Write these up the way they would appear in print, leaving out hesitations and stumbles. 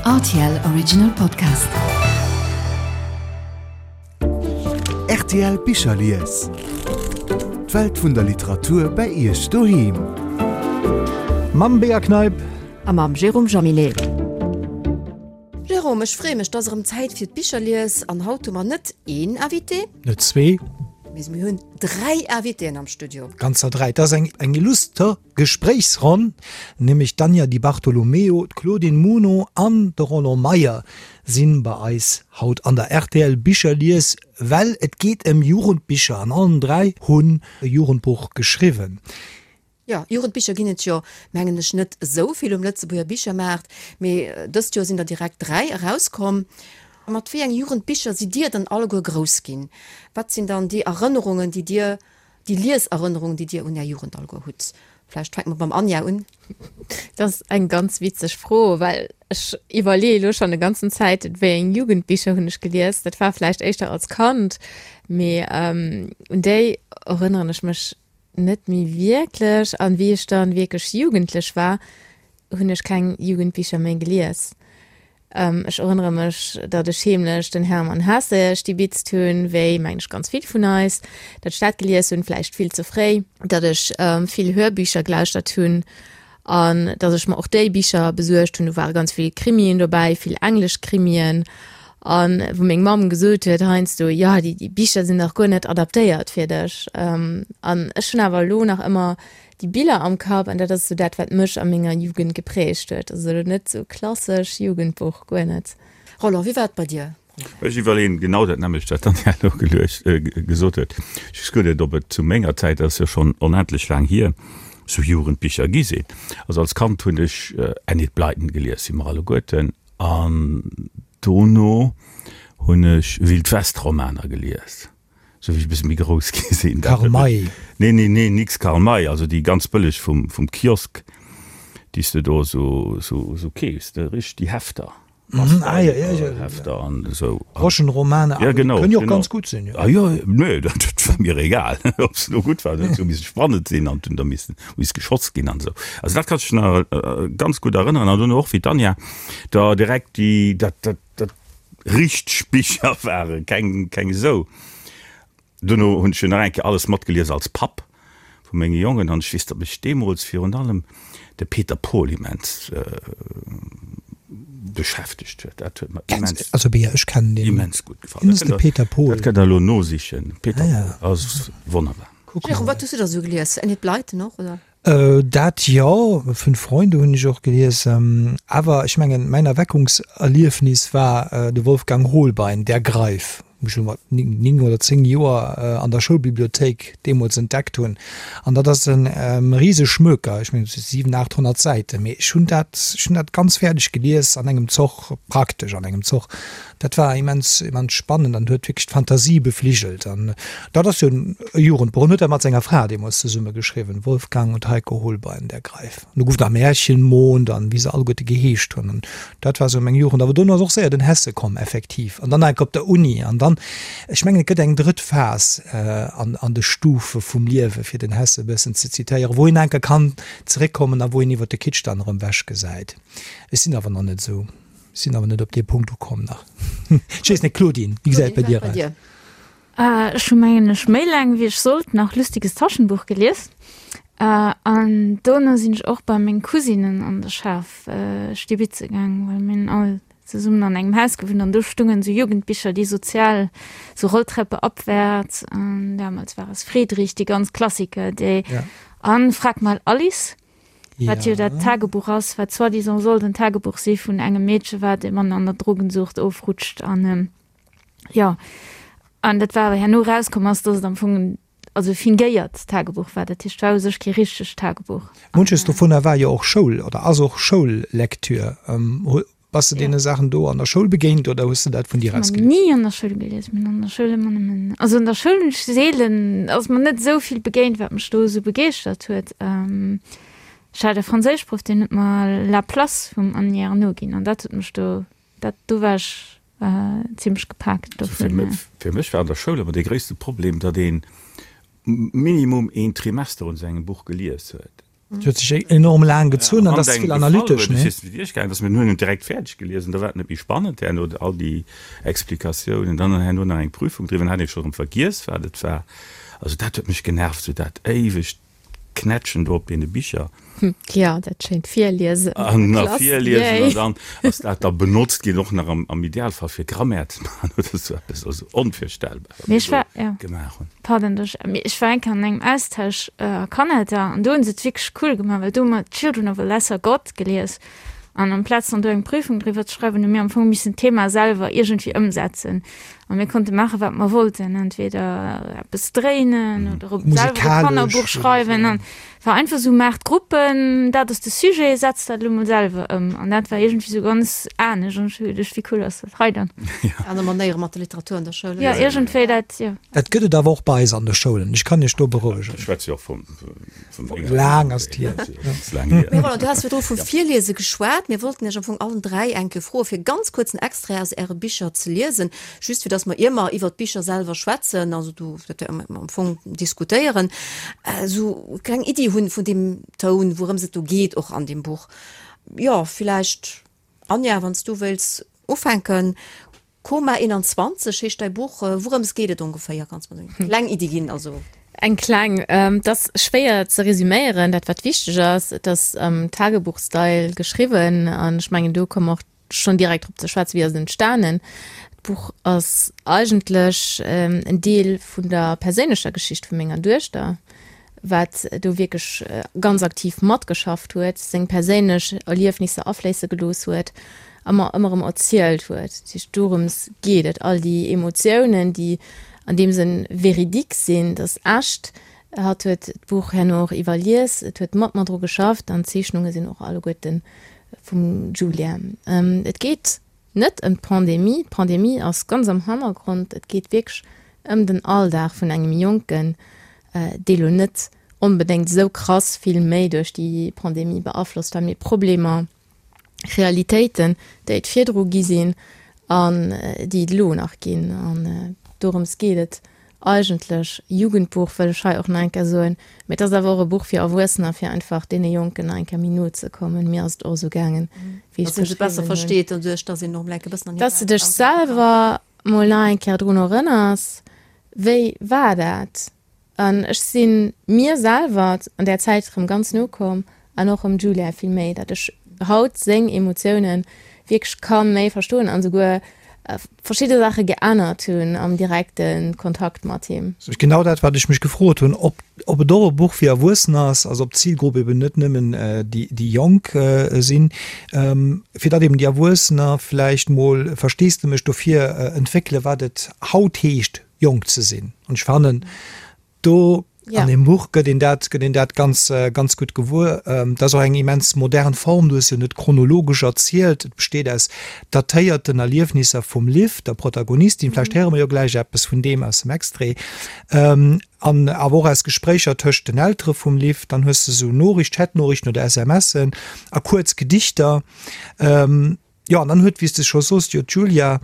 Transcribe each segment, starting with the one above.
Rtl Original Podcast. Rtl Bicherlies. D'Welt vun der Literatur bei Iech doheem. Mam Bea Kneip. A mam Jérôme Jaminet. Jérôme, ech freeë mech, 't ass erëm Zäit fir d'Bicherlies an haut hu mer net een Invité. Net zwee. Mee mir hunn 3 Invitéen am Studio. Ganzer 3. Et ass eng eng illuster Gespréichsronn, nämlech d'Anja Di Bartolomeo, d'Claudine Muno an de Roland Meyer sinn bei eis haut an der rtl Bicherlies, well et geet ëm Jugendbicher an allen 3 hunn e Jugendbuch geschriwwen. Jo, Jugendbicher ginn et jo, mengen ech, net esou vill um Lëtzebuerger Bichermaart, mee dëst Joer sinn der direkt 3 erauskomm. Mat wéi eng Jugendbicher sidd Dir dann alleguer grouss ginn? Wat sinn dann déi Erënnerungen, déi Dir, déi Lieserënnerungen, déi Dir un Är Jugend alleguer hutt? Vläicht fänke mer beim Anja un. Dat ass eng ganz witzeg Fro, well ech iwwerleeë elo schonn e ganzen Zäit, wéi eng Jugendbicher hunn ech gelies. Dat war vläicht éischter als Kand, mee un déi erënneren ech mech Net méi wierklech. An wéi ech dann wierklech jugendlech war, hunn ech keng Jugendbicher méi gelies. Ech erënnere mech, datt ech heemlech den Hermann Hesse stibitzt hunn, wéi, mengen ech, ganz vill vun eis, datt ech dat gelies hunn, vläicht vill ze fréi, datt ech vill Hörbücher gelauschtert hunn An datt ech mer och déi Bicher besuergt hunn, do ware ganz vill Krimien dobäi, vill englesch Krimien. An wou meng Mamm gesot huet heiansdo, jo, déi, déi Bicher sinn dach guer net adaptéiert fir dech. An ech hunn awer elo nach ëmmer déi Biller am Kapp an dat ass esou dat, wat mech a menger Jugend geprägt huet. Also elo net esou klassesch Jugendbuch, guer net. Roland, wéi war et bei dir? Ech iwwerleeën genau dat nämmlecht, wat d'Anja elo geluecht, gesot huet. Ech weess guer net, ob et zu menger Zäit, dat ass jo schonn onendlech laang hier, esou Jugendbicher gi sinn. Also als Kand hunn ech Enid Blyton gelies, wéi mer alleguerten, an dono hunn ech Wild-West-Romaner gelies, esou wéi ech e bësse méi grouss gi sinn. Karl May? Nee, nee, nee, nix Karl May, also déi ganz bëlleg vum, vum Kiosk, déi s de do esou, esou, esou keefs, richteg déi Hefter. Mhm, ah, ja, ja, ja. Hefter an esou. Groschenromane, ja, genau, kënnen jo och genau. ganz gutt sinn. Jo. Ah, jo, nee, dat, dat war mir egal, ob se lo gutt waren, huet jo misse spannend sinn an hunn da missen, miss geschoss ginn an esou. Also dat kann ech nach äh, ganz gutt erënneren an dunn och wéi d'Anja da direkt déi, dat, dat, dat richteg Bicher waren, keng, keng esou. Duerno hunn ech jo nach eng Kéier alles matgelies als Papp vu menge Jongen an ech weess, datt mech deemools virun allem de Peter Paul immens beschäftegt huet. Dat huet mer immens, Also Bea, ech kennen deen. immens gutt gefall. Wien ass de Peter Paul? Dat kënnt Der elo nosichen. Peter Paul ass wonnerbar. Jérôme, wat hues du da sou gelies? Enid Blyton och, oder? Dat jo, Fünf Freunde hunn ech och gelies. Awer ech mengen, mäin Erweckungserliefnis war de Wolfgang Hohlbein, Der Greif, wou ech elo mat 9 oder 10 Joer an der Schoulbibliothéik deemools entdeckt hunn. An dat ass e rise Schmöker, ech mengen, et si 700, 800 Säiten, mee ech hunn dat, ech hunn dat ganz fäerdeg gelies an engem Zoch, praktesch an engem Zoch. Dat war immens, immens spannend an huet wierklech d'Fantasie befligelt. An dat ass jo e Jugendbuch. En huet dat mat senger Fra deemools zesumme geschriwwen, Wolfgang und Heiko Holbein, Der Greif. An do gouf nach Märchenmond an wéi se alleguerte geheescht hunn. An dat war esou meng Jugend. Awer dono ass och séier den Hesse komm, effektiv. An dann enk op der Uni. An dann, ech mengen, et gëtt eng drëtt Phas an, an de Stufe vum Liewe, fir den Hesse e bëssen ze zitéieren, wou een enke kann zeréckkommen a wou een iwwer de Kitsch dann erëm ewechgesäit. Ech sinn awer nach net esou. Sinn awer net op dee Punkt ukomm nach. Ech weess net, Claudine, wéi gesäit et bei dir aus? Ech hu mengen ech méi laang wéi ech sollt nach Lustiges Taschenbuch gelies. An dono sinn ech och bei meng Cousinen an de Schaf stibitze gaang, well mir hunn all zesummen an engem Haus gewunnt an do stungen esou Jugendbicher, déi sozial, so Rolltreppe abwärts an damals war es Friedrich, déi ganz Klassiker, déi an Frag mal Alice. Wat jo dat Tagebuch ass, wat soi-disant sollt en Tagebuch si vun engem Meedche, wat e Mann an der Drogensucht ofrutscht an jo. An dat war awer herno erauskomm ass, dass et am Fong en, also e fingéiert Tagebuch war. Dat heescht, et war u sech kee richtegt Tagebuch. Munches dovunner war jo och Schoul oder ass och Schoullektür. Bass de deene Saachen do an der Schoul begéint oder hues de dat vun dir aus gelies? Ni an der Schoul gelies. Mir hunn an der Schoul ëmmer nëmmen, also an der Schoul hunn ech seelen, ass mer net esou vill begéint, wat mech do esou begeeschtert huet. Ech hat e Franséischproff, deen huet mer La Place vum Annie Ernaux ginn an dat huet mech do, dat, do war ech zimmlech gepaakt dovun. Fir mech war an der Schoul ëmmer dee gréisste Problem, datt ee minimum een Trimester un esou engem Buch gelies huet. Et huet sech enorm laang gezunn an dat ass vill analytesch, ne? Dass mir hunn en direkt fäerdeg gelies an da war et net méi spannend herno, all déi Explikatiounen, dann herno nach eng Prüfung driwwer, dann hat ee scho rëm vergiess wat et war. Also dat huet mech genervt, sou dat éiwegt Knätschen do op deene Bicher. Jo, dat schéint Virliesen an der Klass. Virliesen an dann ass dat da benotzt ginn, och nach am Idealfall fir Grammaire ze maachen oder sou eppes. Also onvirstellbar, wat mir do gemaach hunn. Pardon, ech, mee ech war eng Kéier an engem Austausch a Kanada an do hunn se et wierklech cool gemaach, well do hu mer Children of a Lesser God gelies an amplaz dann do eng Prüfung driwwer ze schreiwen, hu mir am Fong missen d'Thema selwer iergendwéi ëmsetzen a mir konnte maache wat mer wollten, entweder eppes dréinen oder op selwer e Kannerbuch schreiwen an war einfach sou, maacht Gruppen, dat ass de Sujet, setzt dat elo mol selwer ëm an dat war iergendwéi sou ganz anescht an ech hu geduecht, wéi cool ass dat hei dann. Aner Manéiere mat der Literatur an der Schoul. Jo, iergendwéi dat, jo. Dat gëtt et awer och bei eis an de Schoulen, ech kann Iech do berouegen. Ech schwätze jo och vum enger. Laang ass et hier. Mee Roland, du has virdru vu Virliese geschwat. Mir wollten Iech am Fong allen 3 eng Kéier froen, fir ganz kuerz en Extrait aus Äre Bicher ze liesen, just fir dass mer, ier mer iwwert d'Bicher selwer schwätzen, also do, dat wäerte mer am Fong diskutéieren, esou e kleng Iddi hunn vun deem Toun, wourëms et do geet och an deem Buch. Jo, villäicht, Anja, wann s du wéilts ufänken. Koma 21 heescht däi Buch. Wourëms geet et ongeféier? Kanns mer eng kleng Iddi ginn? Also. Eng kleng. Et ass schwéier ze resüméieren. Dat wat wichteg ass, et ass am Tagebuch-Style geschriwwen an ech mengen do komme mer och schonn direkt drop ze schwätzen, wéi ass et entstanen. D'Buch ass eigentlech en Deel vun der perséinlecher Geschicht vu menger Duechter, wat do wierklech ganz aktiv matgeschafft huet, seng perséinlech Erliefnisser afléisse gelooss huet a mer ëmmer erëm erzielt huet. Dat heescht, dorëms geet et, all déi Emotiounen, déi an deem Sënn véridique sinn, dat ass echt. Hatt huet d'Buch herno och iwwerlies, et huet mat mer dru geschafft an d'Zeechnunge sinn och alleguerte vum Julia. Et geet net ëm d'Pandemie, d'Pandemie ass ganz am Hannergrond, et geet wierklech ëm den Alldag vun engem Jonken, dee lo net onbedéngt esou krass vill méi duerch déi Pandemie beaflosst war, mee Problemer, Realitéiten, déi et virdru gi sinn an déi et elo nach ginn. An dorëms geet et eigentlech. Jugendbuch wëll ech hei och nach eng Kéier soen, mee et ass awer och e Buch fir Erwuessener, fir einfach deene Jonken nach eng Kéier méi no ze kommen. Mir ass et och esou gaangen, wéi ech et beschriwwen hunn. Besser versteet doduerch, dass een och emol eng Kéier e bëssen an hir Dass de dech selwer mol nach eng Kéier drun erënners, wéi war dat? An ech si mir selwer an där Zäit erëm ganz no komm an och erëm Julia vill méi, datt ech haut seng Emotiounen wierklech ka méi verstoen an esouguer verschidde Saache geännert hunn am direkte Kontakt mat him. Genau dat, wat ech mech gefrot hunn, ob ob et och e Buch fir Erwuessener ass, also ob d'Zilgrupp eben net nëmmen déi déi Jonk sinn, fir datt eben déi Erwuessener vläicht mol Versteesdemech dofir entwéckele wat et haut heescht, jonk ze sinn. An ech fannen, do ja. an dem Buch gëtt een dat, gëtt een dat ganz, äh, ganz gutt gewuer. Ähm, dat ass och eng immens modern Form, du hues jo net chronologesch erzielt. Et besteet aus datéierten Erliefnisser vum Liv, der Protagonistin. Vläicht mhm. héiere mer jo gläich eppes vun deem aus dem Extrait. Ähm, an awer och aus Gespréicher tëscht den Eltere vum Liv. Dann hues du sou Noriicht, Chatnoriichten oder SMSen a kuerz Gedichter. Ähm, Jo, an dann huet, wéi s de scho soos, jo d'Julia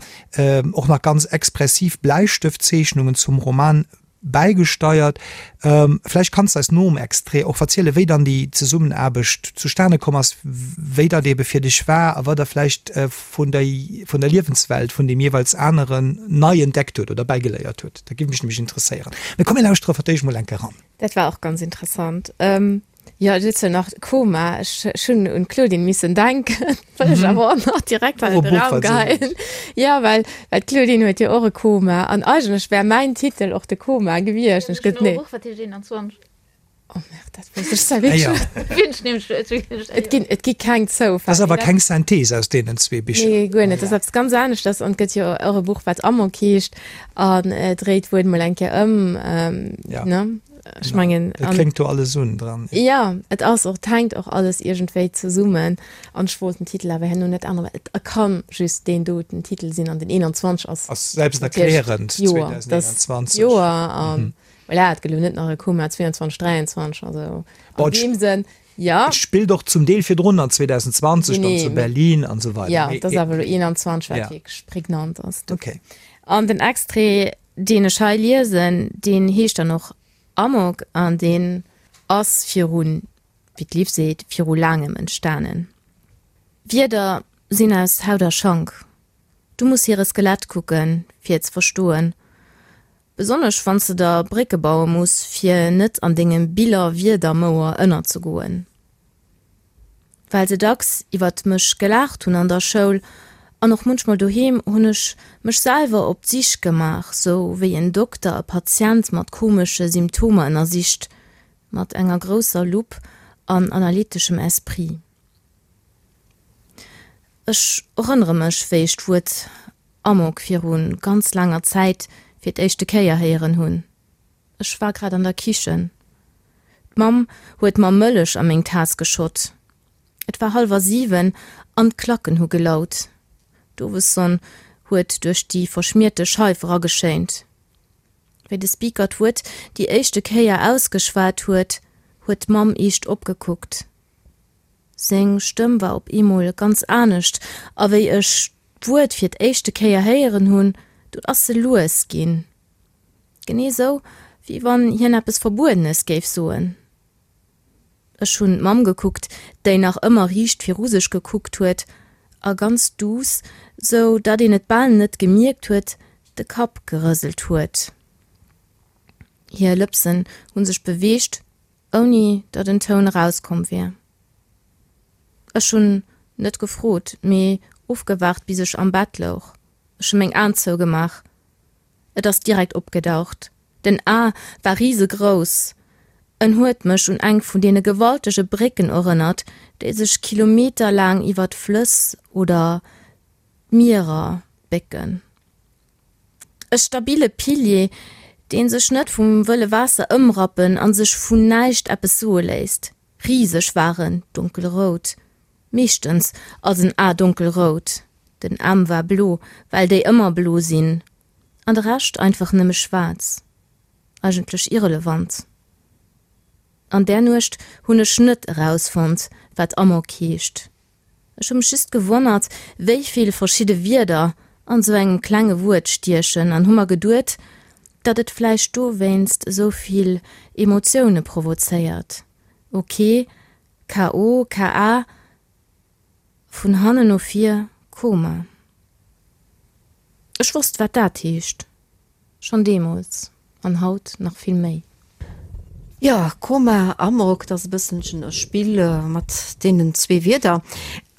och nach ganz expressiv Bläistëftzeechnungen zum Roman bäigesteiert. Vläicht kanns de eis nom Extrait och verzielen, wéi dann déi Zesummenaarbecht zustane komm ass, wéi dat eebe fir dech war a wat der vläicht vun der, vun der Liewenswelt vun deem jeeweils aneren nei entdeckt huet oder bäigeléiert huet. Dat géif mech nämlech interesséieren. Mee komm, mir lauschtere fir d'éischt mol eng Kéier eran. Dat war och ganz interessant. Jo, et huet jo nach Koma. Ech hunn un d'Claudine missen denken, well ech awer och nach direkt an den Raum geheien. Jo, well well d'Claudine huet jo och e Koma an eigentlech wär mäin Titel och de Koma gewiescht. Ech gëtt nee. Buch, wat heescht 21? Oh merde, dat wousst ech zwar wierklech net. Et ginn et gi keng Zoufäll. Dat ass awer keng Synthese aus deenen zwee Bicher. Nee, guer net. Dat ass eppes ganz aneschters an et gëtt jo och e Buch, wat Amok heescht an dréit d'Wuert mol eng Kéier ëm, ne? Ech mengen Et kléngt do alles un dran. Jo, et ass och, et hänkt och alles iergendwéi zesummen. An ech wollt den Titel awer herno net änneren, well et ka just deen doten Titel sinn an den 21 ass. Ass selbsterklärend, 2021. Joer an voilà, et gëtt elo net nach e Koma 22, 23, also an deem Sënn, jo. Et spillt och zum Deel virdrun an 2020 dann zu Berlin an esou weider. Jo, et ass awer elo 21, wat wierklech prägnant ass. Okay. An den Extrait Deen ech hei liesen, deen heescht dann och Amok an deen ass viru. wéi d'Liv seet, viru laangem entstanen. Wierder sinn aus Haut a Schank. Du muss hire Skelett kucken, fir et ze verstoen. Besonnesch wann s de der Brécke baue muss, fir net an dengem Biller-Wierder-Mouer ënnerzegoen. Well se dacks iwwert mech gelaacht hunn an der Schoul an och munchmol doheem, hunn ech mech selwer op d'Sich gemaach, sou wéi en Dokter e Patient mat komesche Symptomer ënnersicht, mat enger grousser Lupp an analyteschem Esprit. Ech erënnere mech, wéi ech d'Wuert Amok viru ganz laanger Zäit fir d'éischte Kéier héieren hunn. Ech war grad an der Kichen. D'Mamm huet mer Mëllech a meng Taass geschott. Et war hallwer 7 an d'Klacken hu gelaut. D'Owessonn huet duerch déi verschmierte Scheif erageschéint. Wéi de Speaker d'Wuert déi éischte Kéier ausgeschwat huet, huet d'Mamm eescht opgekuckt. Seng Stëmm war op eemol ganz anescht, a wéi ech d'Wuert fir d'éischte Kéier héieren hunn, dunn ass se lues ginn. Genee sou, wéi wann hien eppes Verbuedenes géif soen. Ech hunn d'Mamm gekuckt, déi nach ëmmer riicht viru sech gekuckt huet a ganz duuss, sou datt een et bal net gemierkt huet, de Kapp gerëselt huet. Hir Lëpsen hu sech beweegt, ouni datt en Toun erauskomm wier. Ech hunn net gefrot, mee ofgewaart, bis ech am Bett louch. Ech hu meng Aen zougemaach. Et ass direkt opgedaucht. Den A war risegrouss. En huet mech un eng vun deene gewaltege Brécken erënnert, déi sech kilometerlaang iwwer d'Flëss oder d'Mierer bécken. E stabile Pilier, dee sech net vum wëlle Waasser ëmrappen a sech vun näischt eppes soe léisst. Riseg war en, donkelrout. Meeschtens ass en A donkelrout, den M war blo, well déi ëmmer blo sinn, an de Rescht einfach nëmme schwaarz. Eigentlech irrelevant. An där Nuecht hunn ech net erausfonnt, wat Amok heescht. Ech hu mech just gewonnert, wéi vill verschidde Wierder an sou engem klenge Wuert stiechen an hu mer geduet, datt et vläicht dowéinst esou vill Emotioune provozéiert. Ok, KO, KA, vun hannen no vir, Koma. Ech wosst, wat dat heescht, schonn deemools an haut nach vill méi. Jo, Koma, Amok, dat ass e bësselchen e Spill mat deenen zwee Wierder.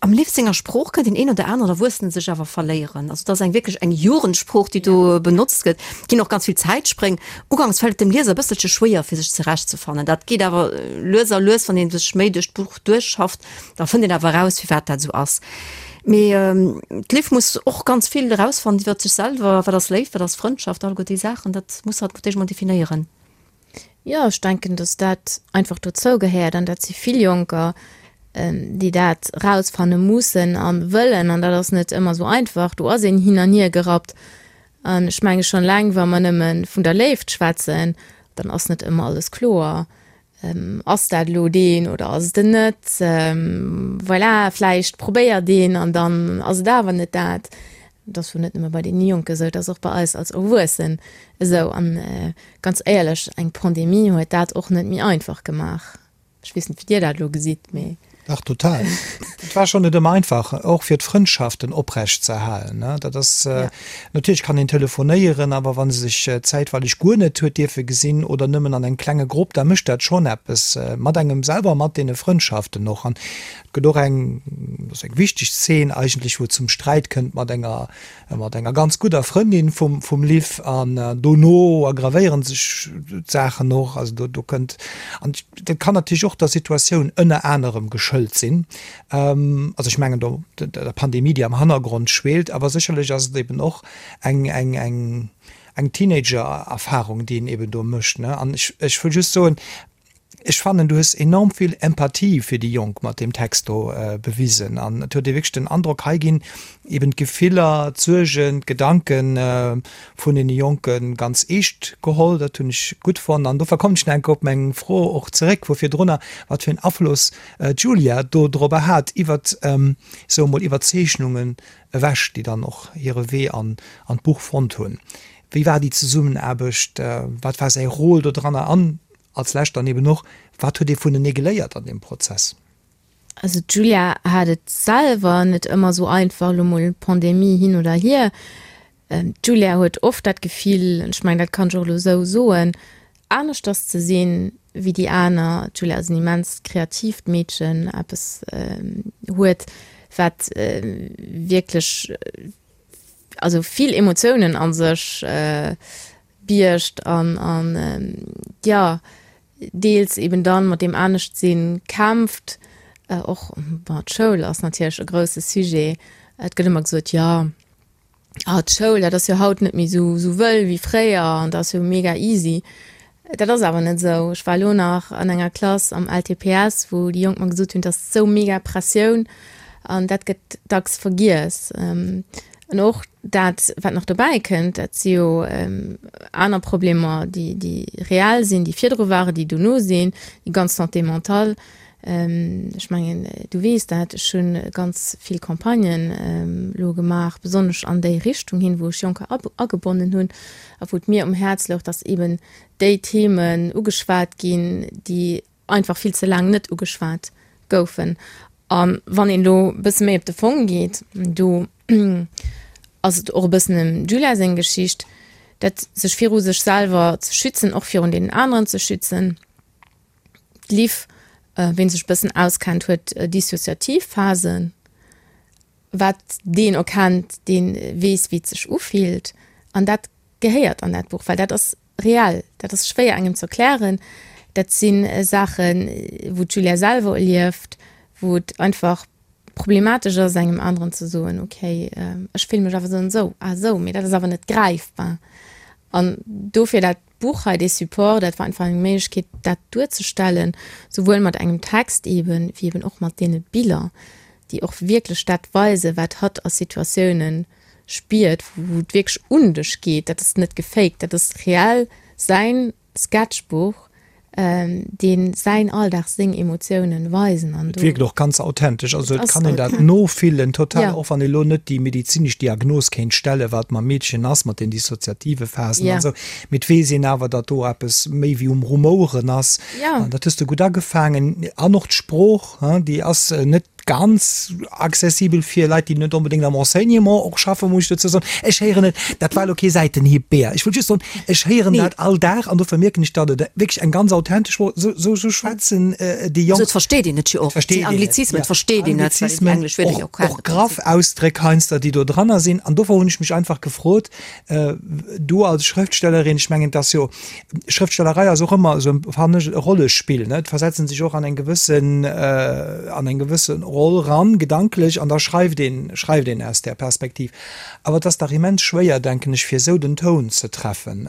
Am Liv senger Sprooch kënnt deen een oder aneren Erwuessene sech awer verléieren. Also et ass eng wierklech eng Jugendsprooch, déi do benotzt gëtt. Et ginn och ganz vill Zäitspréng. Uganks fält et dem Lieser e bësselche schwéier, fir sech zurechtzefannen. Dat geet awer lues a lues, wann ee sech méi duerch d'Buch duerchschafft, da fënnt een awer eraus, firwat dat esou ass. Mee d'Liv muss och ganz vill erausfannen iwwer sech selwer, Wat ass Léift, wat ass Frëndschaft, alleguer déi Saachen, dat muss hatt fir d'éischt mol definéieren. Jo, ech denken, datt dat einfach dozou gehéiert an dat si vill Jonker, déi dat erausfanne mussen a wëllen an dat ass net ëmmer esou einfach. Do ass een hin an hier gerappt an ech menge schonn eleng, wa mer nëmme vun der Léift schwätzen, dann ass net ëmmer alles kloer. Ass dat elo deen oder ass et en net? Voilà, vläicht probéiert een an dann ass et awer net dat. Et ass wuel net nëmme bei deene Jonken esou, et ass och bei eis als Erwuessen esou. An ganz éierlech, eng Pandemie huet dat och net méi einfach gemaach. Ech weess net, wéi Dir dat elo gesitt, mee. Dach, total. Et war schonn net ëmmer einfach, och fir d'Frëndschaften oprecht ze erhalen. Dat ass, natierlech kann een telefonéieren, awer wa se sech zäitweileg guer net huet dierfe gesinn oder nëmmen an engem klenge Grupp, da mécht dat schonn eppes mat engem selwer, mat deene Frëndschaften och. An Et gëtt och eng, dat ass eng wichteg Zeen eigentlech, wou et zum Sträit kënnt mat enger, mat enger ganz gudder Frëndin vum, vum Liv an dono aggravéieren sech d'Saachen och. Also do, do kënnt, an dat kann natierlech och der Situatioun ënner anerem geschëlt sinn. Also ech mengen do der Pandemie, déi am Hannergrond schweelt, awer sécherlech ass et eben och eng, eng, eng, eng Teenager-Erfahrung, déi een eben do mécht, ne. An ech, ech wëll just soen, Ech fannen, du hues enorm vill Empathie fir déi Jonk mat deem Text do bewisen an et huet ee wierklech den Androck, hei ginn eben d'Gefiller, d'Suergen, d'Gedanke vun deene Jonke ganz eescht geholl. Dat hunn ech gutt fonnt an dofir kommen ech nach eng Kéier op meng Fro och zeréck vu virdrunner, wat fir en Afloss d'Julia do dorobber hat, iwwert, soe mol, iwwer d'Zeechnungen ewech, déi dann och hire Wee an d'Buch fonnt hunn. Wéi war déi Zesummenaarbecht, wat war säi Rôle dodranner an? Als Lescht dann eben och, Wat huet ee vunenee geléiert an deem Prozess? Also d'Julia hat et selwer net ëmmer esou einfach, elo mol Pandemie hin oder hier. D'Julia huet oft dat Gefill, an ech mengen, dat kann ech och elo esou soen, aneschters ze sinn wéi déi aner. D'Julia ass en immens kreatiivt Meedchen, eppes huet, wat wierklech, also vill Emotiounen a sech biergt an, an jo, deels eben dann mat deem Aneschtsinn kämpft. Och, bon, d'Schoul ass natierlech e grousse Sujet. Et gëtt ëmmer gesot, jo, ah d'Schoul, dat ass jo haut net méi esou, esou wëll wéi fréier an dat ass jo mega easy. Dat ass awer net esou. Ech war elo nach an enger Klass am LTPS, wou déi Jonk mer gesot hunn, et ass esou mega Pressioun an dat gëtt dacks vergiess. An och dat, wat nach dobäi kënnt, dat si jo aner Problemer, déi, déi reell sinn, déi virdru waren, déi dono sinn, déi ganz Santé mentale. Ech mengen, du weess dat, ech hu ganz vill Campagnen elo gemaach, besonnesch an déi Richtung hin, wou ech Jonker agebonnen hunn a wou et mir um Häerz louch, dass eeben déi Themen ugeschwat ginn, déi einfach vill ze laang net ugeschwat goufen. A wann een elo e bësse méi op de Fong geet, do ass et och e bëssen dem Julia seng Geschicht, dat sech viru sech selwer ze schützen, och virun deenen aneren ze schützen. D'Liv, ween sech e bëssen auskennt, huet dissociativ Phasen. Wat deen erkennt, dee weess, wéi et sech ufillt. An dat gehéiert an dat Buch, well dat ass reell, dat ass schwéier engem ze erklären. Dat si Saachen, wou d'Julia selwer erlieft, wou et einfach problematesch ass, engem aneren ze soen, okay, ech fille mech awer esou an esou. Ah esou, mee dat ass awer net gräifbar. An dofir dat Buch hei, dee Support, dat war einfach eng Méiglechkeet, dat duerzestellen, souwuel mat engem Text eeben, wéi eeben och mat deene Biller, déi och wierklech dat weisen, wat hatt a Situatiounen spiert, wou et wierklech un dech geet. Dat ass net gefaked, dat ass reell säin Sketchbuch, dee säin Alldag, seng Emotiounen weisen. An do. Et wierkt och ganz authentesch, also et kann een dat nofillen total, och wann ee lo net déi medezinesch Diagnos kéint stellen, wat mam Meedchen ass mat den dissoziative Phasen an esou, mee et weess een awer, datt do eppes méi wéi um Rumoueren ass. An dat hues de gutt agefaangen. An och d'Sprooch, déi ass net ganz accessibel fir Leit, déi net onbedéngt am Enseignement och schaffen, muss ech dozou soen. Ech héieren et, dat war elo kee Säitenhieb, Bea, ech wollt just soen, ech héieren dat all Dag an dofir mierken ech, datt et wierklech eng ganz authentesch Sprooch, esou, esou, esou schwätzen déi Jonk. Esou, et versteet een et jo och. Et versteet een et, Anglizismen, et versteet een et, well een déi englesch Wierder jo kennt. Och graff Ausdréck heiansdo, déi do dranner sinn. An dofir hunn ech mech einfach gefrot, Du als Schrëftstellerin, ech mengen, et ass jo, Schrëftstellerei ass och ëmmer esou, fannen ech, e Rollespill, ne? Et versetzt sech och an eng gewëssen, an eng gewësse Roll ran, gedanklech, an da schreift een, schreift een aus där Perspektiv. Awer et ass dach immens schwéier, denken ech, fir esou den Toun ze treffen.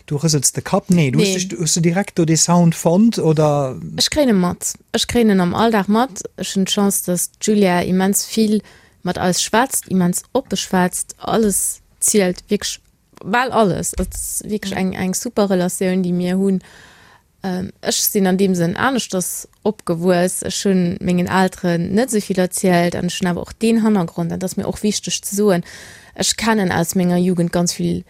Du rësels de Kapp. Nee, du hues dech, hues du direkt do dee Sound fonnt, oder? Ech kréien e mat. Ech kréien en am Alldag mat. Ech hunn d'Chance, datt d'Julia immens vill mat eis schwätzt, immens oppe schwätzt, alles zielt, wierklech bal alles. Et ass wierklech eng, eng super Relatioun, déi mir hunn. Ech sinn an deem Sënn aneschters opgewuess. Ech hunn mengen Elteren net esou vill erzielt an ech hunn awer och deen Hannergrond, dat ass mir och wichteg ze soen, ech kennen aus menger Jugend ganz vill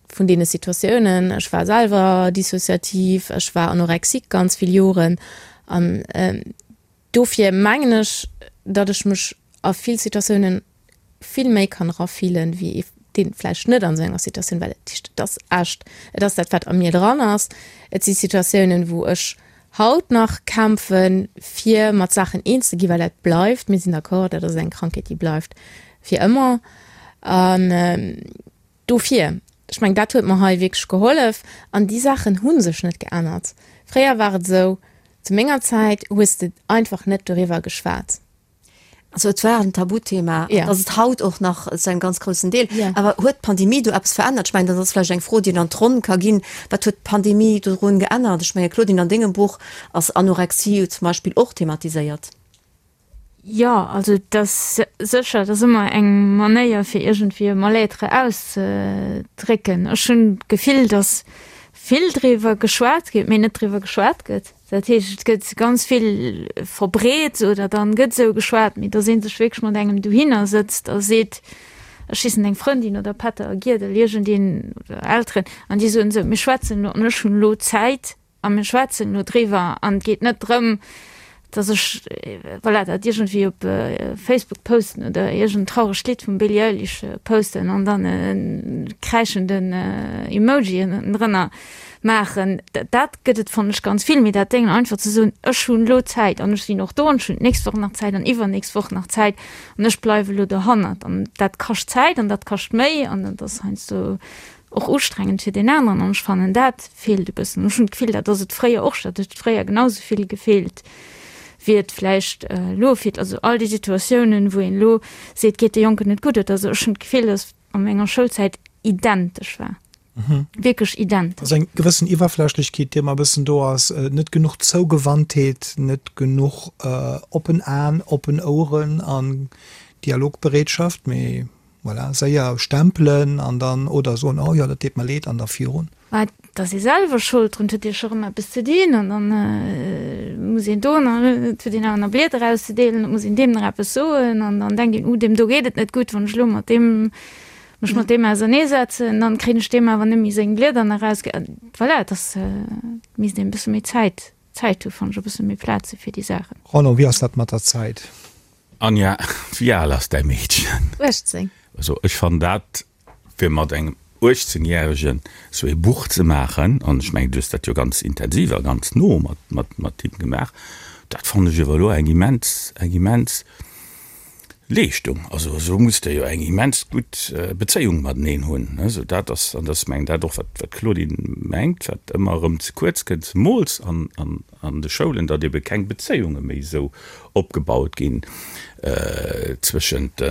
vun deene Situatiounen. Ech war selwer dissociativ, ech war anorexique ganz vill Joren an Dofir mengen ech, datt ech mech a vill Situatiounen vill méi kann erafillen, wéi ee deen vläicht net an esou enger Situatioun, well et et ass echt, et ass dat wat a mir dran ass. Et si Situatiounen, wou ech haut nach kämpfen, fir mat Saachen eens ze ginn, well dat bleift, mir sinn d'accord, dat ass eng Krankheet, déi bleift fir ëmmer. An Dofir, ech mengen, dat huet mer hei wierklech gehollef. An déi Saachen hu sech net geännert. Fréier war et esou, zu menger Zäit hues de einfach net doriwwer geschwat. Also et war en Tabuthema, an ass et haut och nach zu engem ganz groussen Deel. Awer huet d'Pandemie do eppes verännert? Ech mengen, dat ass vläicht eng Fro, déi een an d'Ronn ka ginn. Wat huet d'Pandemie dorun geännert? Ech mengen, Claudine, an dengem Buch ass Anorexie zum Beispill och thematiséiert. Jo, also et ass sécher, et ass ëmmer eng Manéier fir iergendwéi e Mal-être auszedrécken. Ech hunn d'Gefill, datt vill driwwer geschwat gëtt, mee net driwwer geschwat gëtt. Dat heescht, et gëtt ganz vill verbreet oder dann gëtt esou geschwat, mee datt ee sech wierklech mat engem dohinner sëtzt a seet, ech hissen eng Frëndin oder Pätter a Giedel, iergendeen oder Elteren, an déi soen esou, mir schwätzen elo an ech hunn elo Zäit. a mir schwätzen elo driwwer an et geet net drëm, dass ech, voilà, dat iergendwéi op Facebook posten oder iergend trauregt Lidd vum Billie Eilish posten an dann e kräischenden Emoji ënnendrënner maachen. Dat gëtt et, fannen ech, ganz vill. Mee dat Déngen einfach ze soen, ech hunn elo Zäit an ech sinn och do an ech hunn d'nächst Woch nach Zäit an iwwernächst Woch nach Zäit an ech bleiwe elo dohannert. An dat kascht Zäit an dat kascht Méi an dat ass heiansdo och ustrengend fir deen aneren an ech fannen dat feelt e bëssen. Ech hunn d'Gefill, dat ass et fréier och, dat huet fréier genau sou vill gefeelt wéi et vläicht elo feelt. Also all déi Situatiounen, wou een elo seet, geet de Jonken net gutt oder sou, ech hunn d'Gefill, datt a menger Schoulzäit identesch war, wierklech identesch. Also eng gewëssen Iwwerflächlechkeet, déi ëmmer e bëssen do ass, net genuch Zougewandtheet, net genuch oppen Aen, oppen Oueren an Dialogbereetschaft, mee Voilà, séier stempelen an dann, oder soen, oh jo, dat deet mer leed an da virun. Mä et ass ee selwer Schold drun, et huet ee scho rëm eppes ze dinn an dann muss een do nach, et huet een awer nach Blieder auszedeelen, et muss een deem nach eppes soen an dann denkt een, uh, deem do geet et net gutt, wann ech elo mat deem, mech mat deem auserneesetzen, dann kréien ech deem awer net méi seng Blieder nach eraus. Voilà, et ass, et misst een e bësse méi Zäit, Zäit hu fannen ech, e bësse méi Plaz hu fir déi Saachen. Roland, wéi ass dat mat der Zäit? Anja, wéi al ass däi Meedchen? 18. Also ech fannen dat, fir mat engem 18 järegen sou ee Buch ze maachen, an ech mengen du hues dat jo ganz intensiv a ganz no mat mat mat him gemaach, dat fannen ech ewer elo eng immens eng immens Leeschtung. Also esou muss der jo eng immens gutt Bezéiung mateneen hunn. Also dat ass, an dat ass mengen dat och wat wat d'Claudine mengt, wat ëmmer erëm ze kuerz kënnt, zemools an an an de Schoulen, datt ebe keng Bezéiunge méi esou opgebaut ginn zwëschent de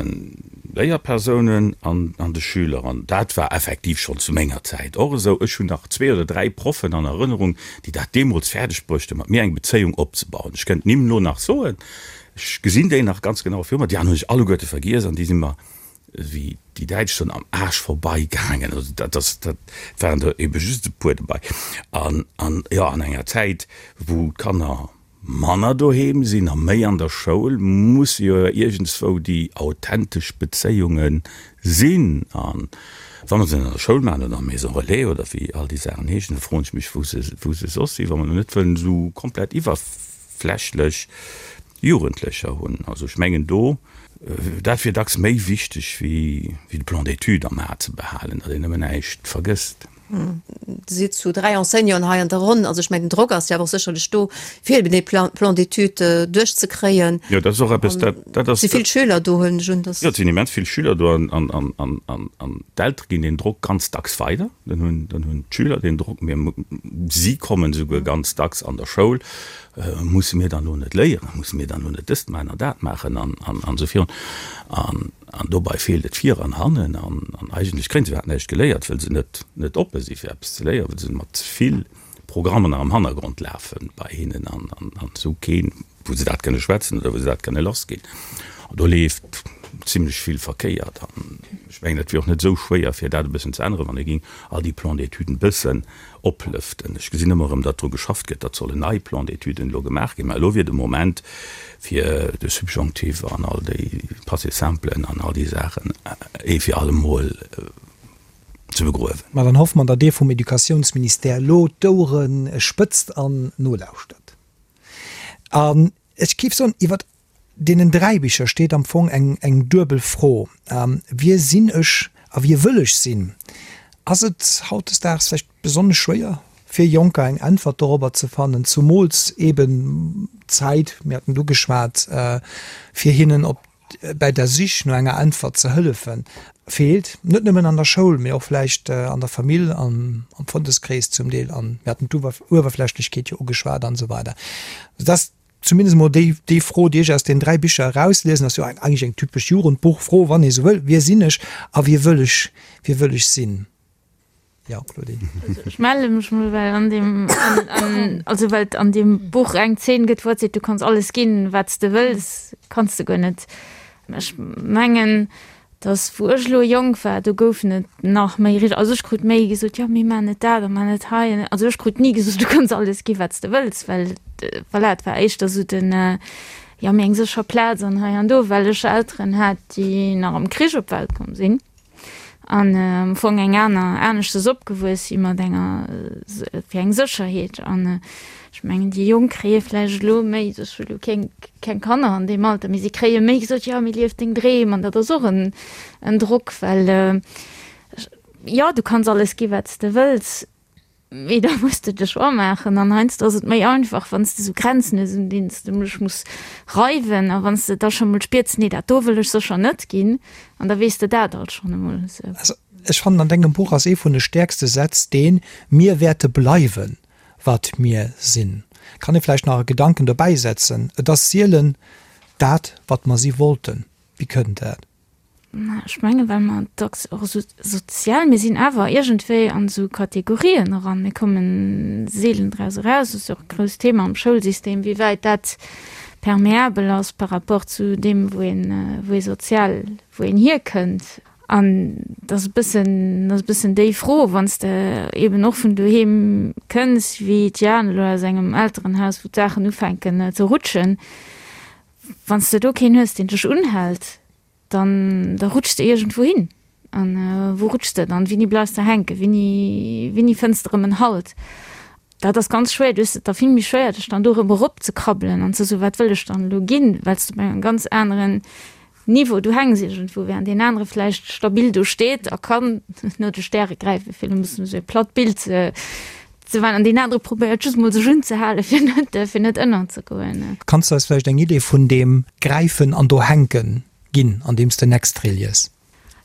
Léierpersounen an de Schüler. An dat war effektiv schonn zu menger Zäit och esou. Ech hunn nach zwee oder dräi Proffen an Erënnerung, déi dat deemools fäerdeg bruecht hunn, mat mir eng Bezéiung opzebauen. Ech kënnt d'Nimm elo nach soen, ech gesinn déi nach ganz genau viru mer. Déi aner hunn ech alleguerte vergiess an déi si mer wéi déi Däitsch soen, am Aarsch vorbei gaangen. Also dat ass, dat waren der ebe just e puer dobei. An, an jo, an enger Zäit, wou d'Kanner manner doheem sinn a méi an der Schoul, musse jo iergendswou déi authentesch Bezéiunge sinn. A wa mer se net an der Schoul maachen oder an der Maison relais oder wéi all déi Saachen heeschen, da froen ech mech, wou se, wou se soss sinn, wa mer elo net wëllen esou komplett iwwerflächlech Jugendlecher hunn. Also ech mengen do, dat wier dacks méi wichteg wéi de Plan d'études am A ze behalen, datt een nëmmen näischt vergësst. Dir sidd zu 3 Enseignanten hei an der Ronn. Also ech mengen den Drock ass jo awer och sécherlech do, fir eben dee Plan d'études duerchzekréien. Jo, dat ass och eppes, dat, dat ass. Et si vill Schüler do, huelen ech un, dass. Jo, et sinn immens vill Schüler do an, an, an, an d'Eltere ginn deen Drock ganz dacks weider. Dann hunn, dann hunn d'Schüler deen Drock. Mir, si kommen esouguer ganz dacks an der Schoul Musse mir dann elo net léieren? Musse mir dann elo net dëst maachen an dat maachen an esou virun? An dobei feelt et vir an hannen. An eigentlech kréien se iwwerhaapt näischt geléiert, well se net net oppe si fir eppes ze léieren, well se mat ze vill Programmer nach am Hannergrond lafe bei hinnen an esou keen, wou se dat kënne schwätzen oder wou se dat kënne lassginn. An do leeft zimlech vill verkéiert. An ech mengen, et wier och net esou schwéier, fir dat e bëssen ze änneren, wann ee géing all déi Plan-d'étuden e bëssen oplëften. Ech gesinn ëmmer erëm, datt dru geschafft gëtt, datt sollen nei Plan-d'étuden elo gemaach ginn. Mä elo wier de Moment, fir de Subjonctif an all déi Passé simplen an all déi Saachen ee fir allemol ze begruewen. Ma dann hoffe mer, datt Dir vum Educatiounsministère elo d'Ouere spëtzt an nolauschtert. An ech géif soen, iwwert Deenen 3 Bicher steet am Fong eng eng duebel Fro, Wie sinn ech a wie wëll ech sinn? Ass et hautdesdaags vläicht besonnesch schwéier fir Jonker eng Äntwert dorobber ze fannen, zumools eben d'Zäit, mir haten et ugeschwat, fir hinnen op bäi der Sich no enger Äntwert ze hëllefen, feelt, net nëmmen an der Schoul, mee och vläicht an der Famill, am Frëndeskrees zum Deel, an mir haten d'Uewerflächlechkeet jo ugeschwat an esou weider. Dass Zumindest emol déi, déi Fro, déi ech aus den 3 Bicher erausliesen, ass jo eigentlech eng typesch Jugendbuchfro, wann ee sou wëll, Wie sinn ech a wie wëll ech, wie wëll ech sinn? Jo, Claudine. Also ech melle mech mol, well an deem, an, an, also well et an deem Buch eng Zeen gëtt, wou et seet, du kanns alles ginn, wat s de wëlls, kanns de guer net. Ech mengen, dass wou ech elo jonk war, do goufen et nach méi richteg, also ech krut méi gesot, jo mee maach net dat a maach net hei. Also ech krut ni gesot, du kanns alles gi wat s de wëlls, well voilà, et war éischter esou den, jo mee eng sécher Plaz an hei an do, well ech Elteren hat, déi nach am Krich op d'Welt komm sinn. An am Fong eng aner, aneschtes opgewuess si mat enger, fir eng Sécherheet. An ech mengen, déi Jonk kréie vläicht elo méi, ech hu elo keng, keng Kanner an deem Alter, mee si kréie méi gesot, jo, mee lief deng Dreem. An dat ass och en, en Drock, well jo, du kanns alles gi wat s de wëlls, Mee da muss de de Choix maachen an heiansdo ass et méi einfach, wann s de esou Grenzen hues, un deenen s de mech muss reiwen a wann s de da scho mol spiers, nee dat do wëll ech sécher net ginn an da weess de dat alt schonn emol esou. Also ech fannen, an dengem Buch ass ee vun de stäerkste Sätz deen, Mir wäerte bleiwen, wat mir sinn. Kann ee vläicht nach e Gedanken dobäi setzen, Et ass sielen dat, wat mer si wollten. Wéi kënnt dat? Ech menge well mer dacks och esou sozial, mir sinn awer iergendwéi an esou Kategorien eran, mir komme seelen draus eraus. Dat ass jo och e grousst Thema am Schoulsystem, wéi wäit dat permeabel ass par rapport zu deem, wou een, wou ee sozial, wou een hierkënnt. An dat ass e bëssen, dat ass e bëssen déi Fro, wann s de eeben och vun doheem kënns, wéi d'Jane elo aus engem Elterenhaus, wou d'Saachen ufänken ze rutschen, Wann s de do keen hues, deen dech unhält, dann da rutschs de iergendwou hin. An wou rutschs de dann? Wéini bleifs de hänken? Wéini, wéini fënns de erëm en Halt? Dat ass ganz schwéier. Du hues et da vill méi schwéier, dech dann do erëm eropzekrabbelen an ze soen, Wat wëll ech dann elo ginn? Well s de op engem ganz aneren Niveau du hänks iergendwou, während deen anere vläicht stabil do steet a kann no de Stäre gräifen, fir elo e bëssen esou e platt Bild ze ze maachen, an deen anere probéiert just mol sech unzehalen, fir net fir net ënnerzegoen. Kanns du eis vläicht eng Idee vun deem Gräifen an do hänken ginn, an deem s de en Extrait lies?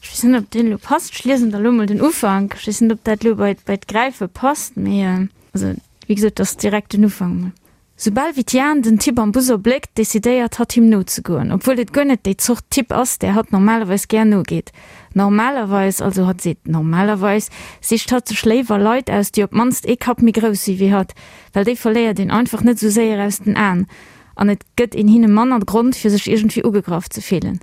Ech weess net, ob deen elo passt. Ech liesen der elo mol den Ufank. Ech weess net, ob dat elo bei bei d'Gräife passt, mee also wéi gesot, et ass direkt den Ufank mol. Soubal wéi d'Jane den Typ am Bus erbléckt, decidéiert hatt him nozegoen, obwuel et guer net déi Zort Typ ass, där hatt normalerweis gär nogeet. Normalerweis, also hatt seet normalerweis, sicht hatt sech léiwer Leit aus, déi op d'mannst ee Kapp méi grouss si wéi hatt, well déi verléiert een einfach net esou séier aus den Aen an et gëtt een hinne manner Grond fir sech iergendwéi ugegraff ze fillen.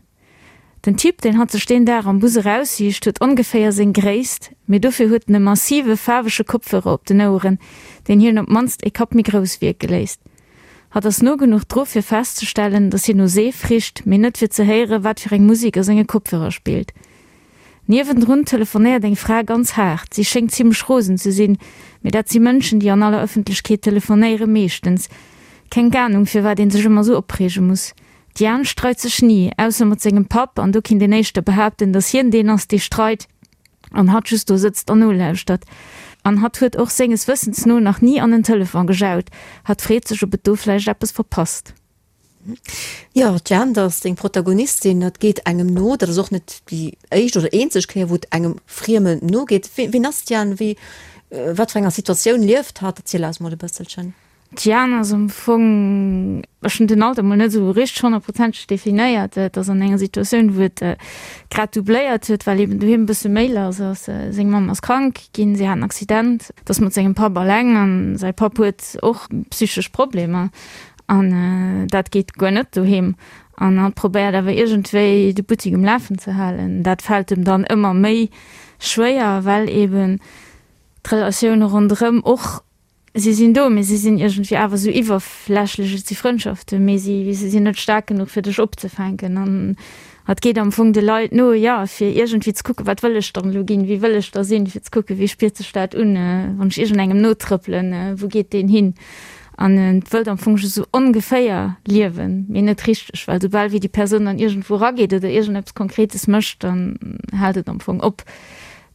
Den Typ, deen hatt sech deen Dag am Bus eraussicht, huet ongeféier seng Gréisst, mee dofir huet en e massive faarwege Kopfhörer op den Oueren, deen hien op d'mannst e Kapp méi grouss wierke léisst. Hatt ass no genuch dru fir festzestellen, datt hien no Seef richt, mee net fir ze héieren, wat fir eng Musek a senge Kopfhörer spillt. Niewendrun telefonéiert eng Fra ganz haart. Si schéngt zimmlech rosen ze sinn, mee dat si Mënschen, déi an aller Ëffentlechkeet telefonéieren, meeschtens. Keng Anung, firwat een sech ëmmer sou opreege muss. D'Diane streit sech ni, ausser mat sengem Papp, an do kinnt een éischter behaapten, datt hien deen ass, dee streit an hatt just do sëtzt an nolauschtert. An hatt huet och senges Wëssens no nach ni an en Telefon gejaut. Hatt freet sech, ob et do vläicht eppes verpasst. Jo, d'Diane, dat ass deng Protagonistin, dat geet engem no. Dat ass och net déi éischt oder eenzeg Kéier, wou et engem Friemen nogeet. Wien ass d'Diane? Wéi, wat fir enger Situatioun lieft hatt? Erziel eis mol e bësselchen. D'Diane ass am Fong, ech hunn den Alter mol net esou richteg honnertprozenteg definéiert, et ass an enger Situatioun, wou et grad doubléiert huet, well eben doheem e bësse méi lass ass. Seng Mamm ass krank ginn, si hat en Accident, et ass mat sengem Papp alleng an säi Papp huet och psychesch Problemer an dat geet guer net doheem. An hatt probéiert awer iergendwéi de Buttik um Lafen ze halen. Dat fält em dann ëmmer méi schwéier, well eben d'Relatioune ronderëm och Si sinn do, mee si sinn iergendwéi awer esou iwwerflächlech. Et si Frëndschaften, mee si, si sinn net staark genuch, fir dech opzefänken. An et geet am Fong de Leit no, jo, fir iergendwéi ze kucken, wat wëll ech dann elo ginn, wie wëll ech da sinn, fir ze kucken, wéi spiert sech dat un, wann ech iergendengem notrëppelen, wou geet deen hin? An et wëllt am Fong just esou ongeféier liewen, mee net richteg, well soubal wéi déi Persoun dann iergendwou erageet oder iergendeppes Konkretes mécht, dann hält et am Fong op.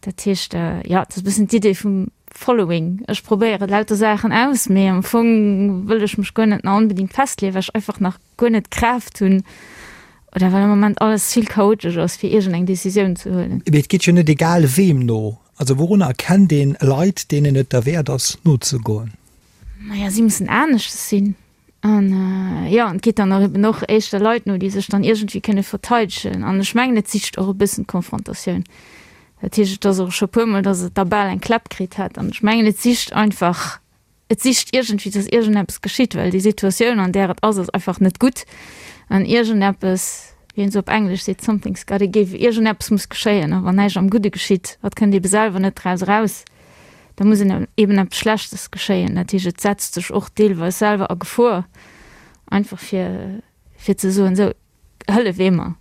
Dat heescht, jo, et ass e bëssen d'Idee vum Following. Ech probéiere lauter Saachen aus, mee am Fong wëll ech mech guer net nach onbedingt festleeën, well ech einfach nach guer net d'Kraaft hunn oder well am Moment alles vill chaotesch ass, fir iergendeng Decisioun ze huelen. Mee et geet jo net egal weem no. Also wourunner erkennt een Leit, deenen et derwäert ass nozegoen? Naja, si mussen aneschters sinn. An jo, an et geet dann och eben och éischter Leit no, déi sech dann iergendwéi kënne verteidegen. An ech mengen, et sicht och e bëssen d'Konfrontatioun. Dat heescht, et ass och scho puermol, datt et da bal eng Kläpp kritt hätt. An ech mengen, et sicht einfach, et sicht iergendwéi, datt iergendeppes geschitt, well déi Situatioun, an där et ass, ass einfach net gutt. An iergendeppes, wéi een esou op Englesch seet, something's gotta give, iergendeppes muss geschéien. A wann näischt am Gudde geschitt, wat kënnt eebe selwer net draus eraus, da muss eben eppes Schlechtes geschéien. Dat heescht, et setzt sech och deelweis selwer a Gefor, einfach fir, fir ze soen, esou, hëllef ee mer.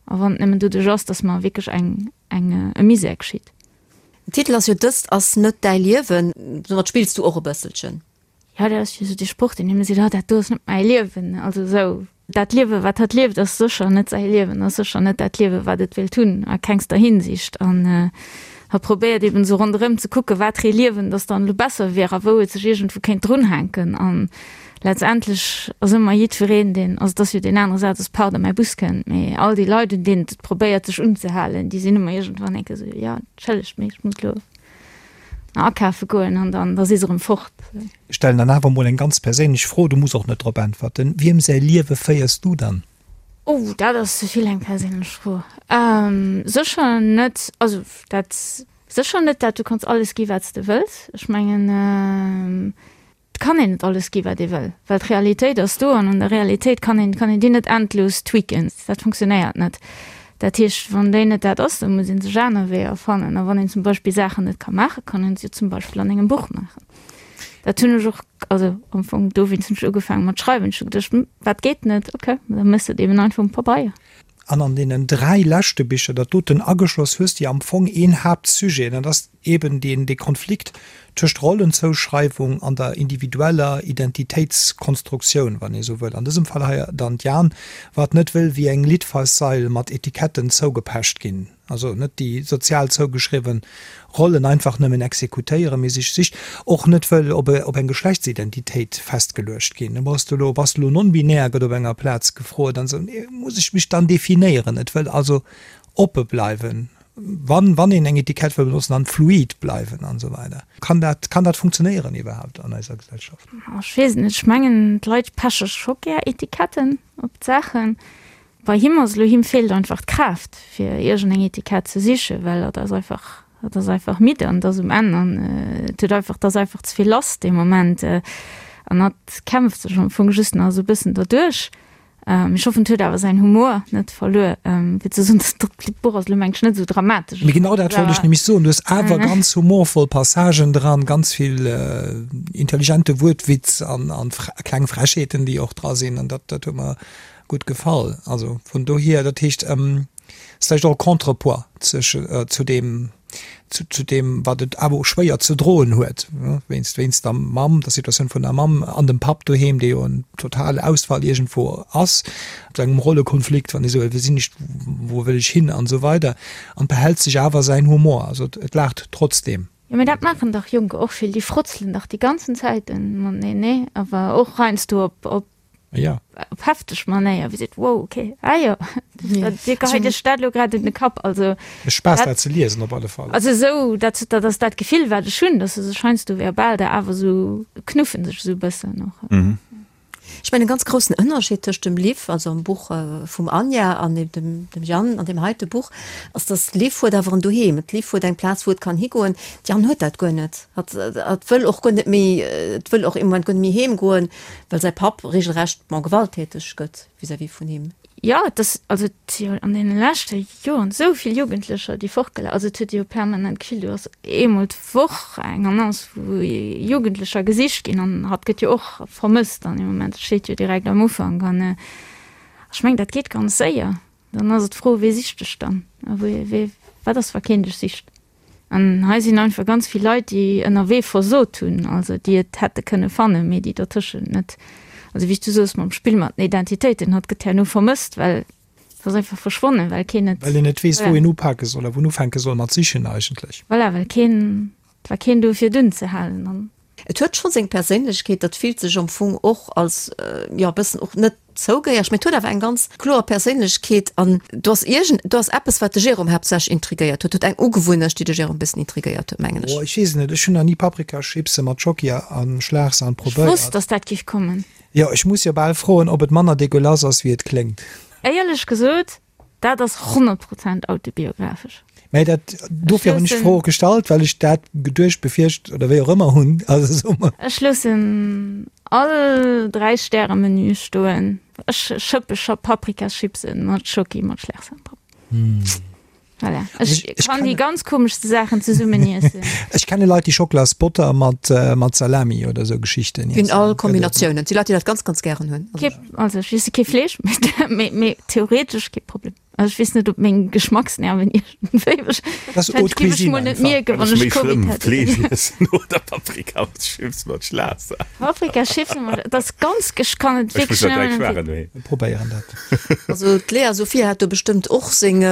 A wann et nëmmen doduerch ass, dass mer wierklech eng, eng, e Misär geschitt. Den Titel ass jo Dëst ass net däi Liewen. Domat spills du och e bësselchen. Jo, dat ass jo esou dee Sproch, deen ëmmer seet, oh dat do ass net mäi Liewen. Also esou, dat Liewe wat hatt lieft, ass sécher net säi Liewen, ass sécher net dat Liewe wat et wéilt hunn, a kengster Hinsicht. An hatt probéiert eben esou ronderëm ze kucken, wat fir ee Liewen dass dann elo besser wier a wou et sech iergendwou kéint drunhänken. An letztendlech ass ëmmer jiddwereen, deen, also et ass jo deen anere Saz ass, pardon, mäi Bus kënnt, mee all déi Leit, un deenen et probéiert sech unzehalen, déi sinn ëmmer iergendwann eng Kéier esou, jo, entschëllegt, mee ech muss elo akafe goen an dann da si se erëm fort. Ech stellen dann awer emol eng ganz perséinlech Fro, du muss och net drop äntwerten, Wiem säi Liewe féiers du dann? Oh, dat ass ze vill eng perséinlech Fro. Sécher net, also dat sécher net dat, du kanns alles gi wat s de wëlls. Ech mengen, Et kann een net alles gi wat ee wëll, well d'Realitéit ass do an an der Realitéit kann een kann een déi net endlos tweaken. Dat funktionéiert net. Dat heescht, wann déi net dat ass, da muss ee sech aner Weeër fannen. A wann een zum Beispill Saachen net ka maachen, kann een se jo zum Beispill an engem Buch maachen. Dat hunn ech och, also am Fong dowéinst hunn ech ugefaange mat schreiwen. Ech hu geduecht, hm, wat geet net? Okay, da méchs de et eben einfach um Pabeier. An an deenen 3 leschte Bicher, dat doten ageschloss, hues de am Fong een Haaptsujet, an dat ass eben deen, dee Konflikt tëscht Rollenzouschreiwung an der individueller Identitéitskonstruktioun, wann ee sou wëll. An dësem Fall hei dann d'Jan, wat net wëll wéi eng Litfaßsail mat Etiketten zougepecht ginn. Also net déi sozial zougeschriwwen Rollen einfach nëmmen exekutéieren, mee sech sicht, och net wëll op op eng Geschlechtsidentitéit festgeluecht ginn. Bass du elo, bass du elo non-binär, gëtt op enger Plaz gefrot an esou. Nee, muss ech mech dann definéieren? Et wëll also oppe bleiwen, wann, wann een eng Etikett wëll benotzen, dann fluid bleiwen an esou weider. Kann dat, kann dat funktionéieren iwwerhaapt an eiser Gesellschaft? Ech weess et net. Ech mengen, d'Leit peche scho gär Etiketten op d'Saachen. Bei him ass elo, him feelt einfach d'Kraaft fir iergendeng Etikett ze sichen, well hatt ass einfach, hatt ass einfach midd an et ass um Enn an et huet einfach, et ass einfach ze vill lass dee Moment an hatt kämpft sech am Fong just nach esou e bëssen derduerch. Ech hoffen, et huet awer säin Humor net verluer, fir ze soen, dat Buch ass elo mengen ech net esou dramatesch. Mee genau dat wollt ech nämlech soen, du hues awer ganz humorvoll Passagen dran, ganz vill intelligente Wuertwitz an kleng Frechheeten, déi och dra sinn an dat huet mer gutt gefall. Also vun dohier, dat heescht, ass vläicht och e Contrepoids zwësche zu deem, zu, zu deem, wat et awer och schwéier ze droen huet, wéinst, wéinst der Mamm, der Situatioun vun der Mamm an dem Papp doheem, dee jo en totale Ausfall iergendwou ass, zu engem Rollekonflikt, wann ee sou wëll, wie sinn ech, wou wëll ech hin an esou weider an behält sech awer säin Humor, also et laacht trotzdeem. Jo, mee dat maachen dach Jonker och vill, déi frotzelen dach déi ganzen Zäiten mateneen, nee? Awer och heiansdo op, op Ja. Op hefteg Manéier, wéi seet, wow, okay, ah jo, Dir geheit Iech dat elo grad un de Kapp. Also, Mécht Spaass dat ze liesen op alle Fall. Also esou, dat, dat ass dat Gefill, wat ech hunn, dass se sech heiansdo verbal da awer esou knuffen sech esou e bëssen och. Ech mengen, e ganz groussen Ënnerscheed tëscht dem Liv, also am Buch vum Anja, an eben dem, dem Jan an deem heite Buch, ass, dass d'Liv huet awer en Doheem. D'Liv huet eng Plaz, wou et kann higoen. D'Jan huet dat guer net. Hatt, hatt wëll och guer net méi, et wëll och im Moment guer net méi heemgoen. Well säi Papp regelrecht, bon, gewalttäteg gëtt vis-à-vis vun him. Jo, et ass, also et si jo an deene leschte Joren esou vill Jugendlecher, déi fortgela, also et huet ee jo permanent d'Gefill, do ass eemol d'Woch eng Annonce, wou Jugendlecher gesicht ginn an hatt gëtt jo och vermësst an deem Moment, dat steet jo direkt am Ufank an ech mengen, dat geet ganz séier. Dann ass et d'Fro, Wee sicht dech dann a wee, wee, wat ass, wa keen dech sicht? An hei sinn einfach ganz vill Leit, déi ënnerwee versot hunn, also déi et hätte kënne fannen, mee déi dertëschent net, also wéi s du soos mam Spill mat den Identitéiten, hatt gëtt herno vermësst, well et ass einfach verschwonnen, well keen et. Well een net weess, wou een upake soll a wou en ufänke soll mat sichen eigentlech. Voilà, well keen, et war keen do fir et unzehalen an. Et huet scho seng Perséinlechkeet, dat fillt sech am Fong och als, jo, e bëssen och net zougehéiereg, mee et huet awer eng ganz kloer Perséinlechkeet an do ass iergend, do ass eppes, wat de Jérôme haaptsächlech intrigéiert huet, huet eng Ugewunnecht, déi de Jérôme e bëssen intrigéiert huet, mengen ech. Oh, ech weess et net, ech hunn nach ni Paprikachipse mat Schocki a Schlagsahn Ech probéiert. wosst, dass dat géif kommen. Jo, ech muss jo bal froen, ob et manner dégueulasse ass, wéi et kléngt. Éierlech gesot, Dat ass 100 Prozent autobiographesch. Mä dat, dofir hunn ech d'Fro och gestallt, well ech dat geduecht, befiercht oder wéi och ëmmer hunn. Also soe mer. Ech loossen all Dräi-Stäre-Menü stoen. Ech schëppe scho Paprikachipsen mat Schoki mat Schlagsahn drop. Voilà. Ech kann déi ganz komeschste Saachen zesummen iessen. Ech kenne Leit, déi Schocklasbotter mat, mat Salami oder esou Geschichten iessen. Ginn all Kombinatiounen. Et si Leit, déi dat ganz, ganz gären hunn. Kee, also ech iesse kee Fleesch, mee, mee theoretesch kee Problem. Also ech weess net, ob meng Geschmacksnerven iergendwéi mech. Das ist haute cuisine einfach. Net mierken, wann ech Covid hätt. Fleesch iessen oder Paprikachips mat Schlaasser. Paprikachips mat, dat ass ganz, ech kann et wierklech net. Mir probéieren dat. Also d'Lea Sophia hat do bestëmmt och seng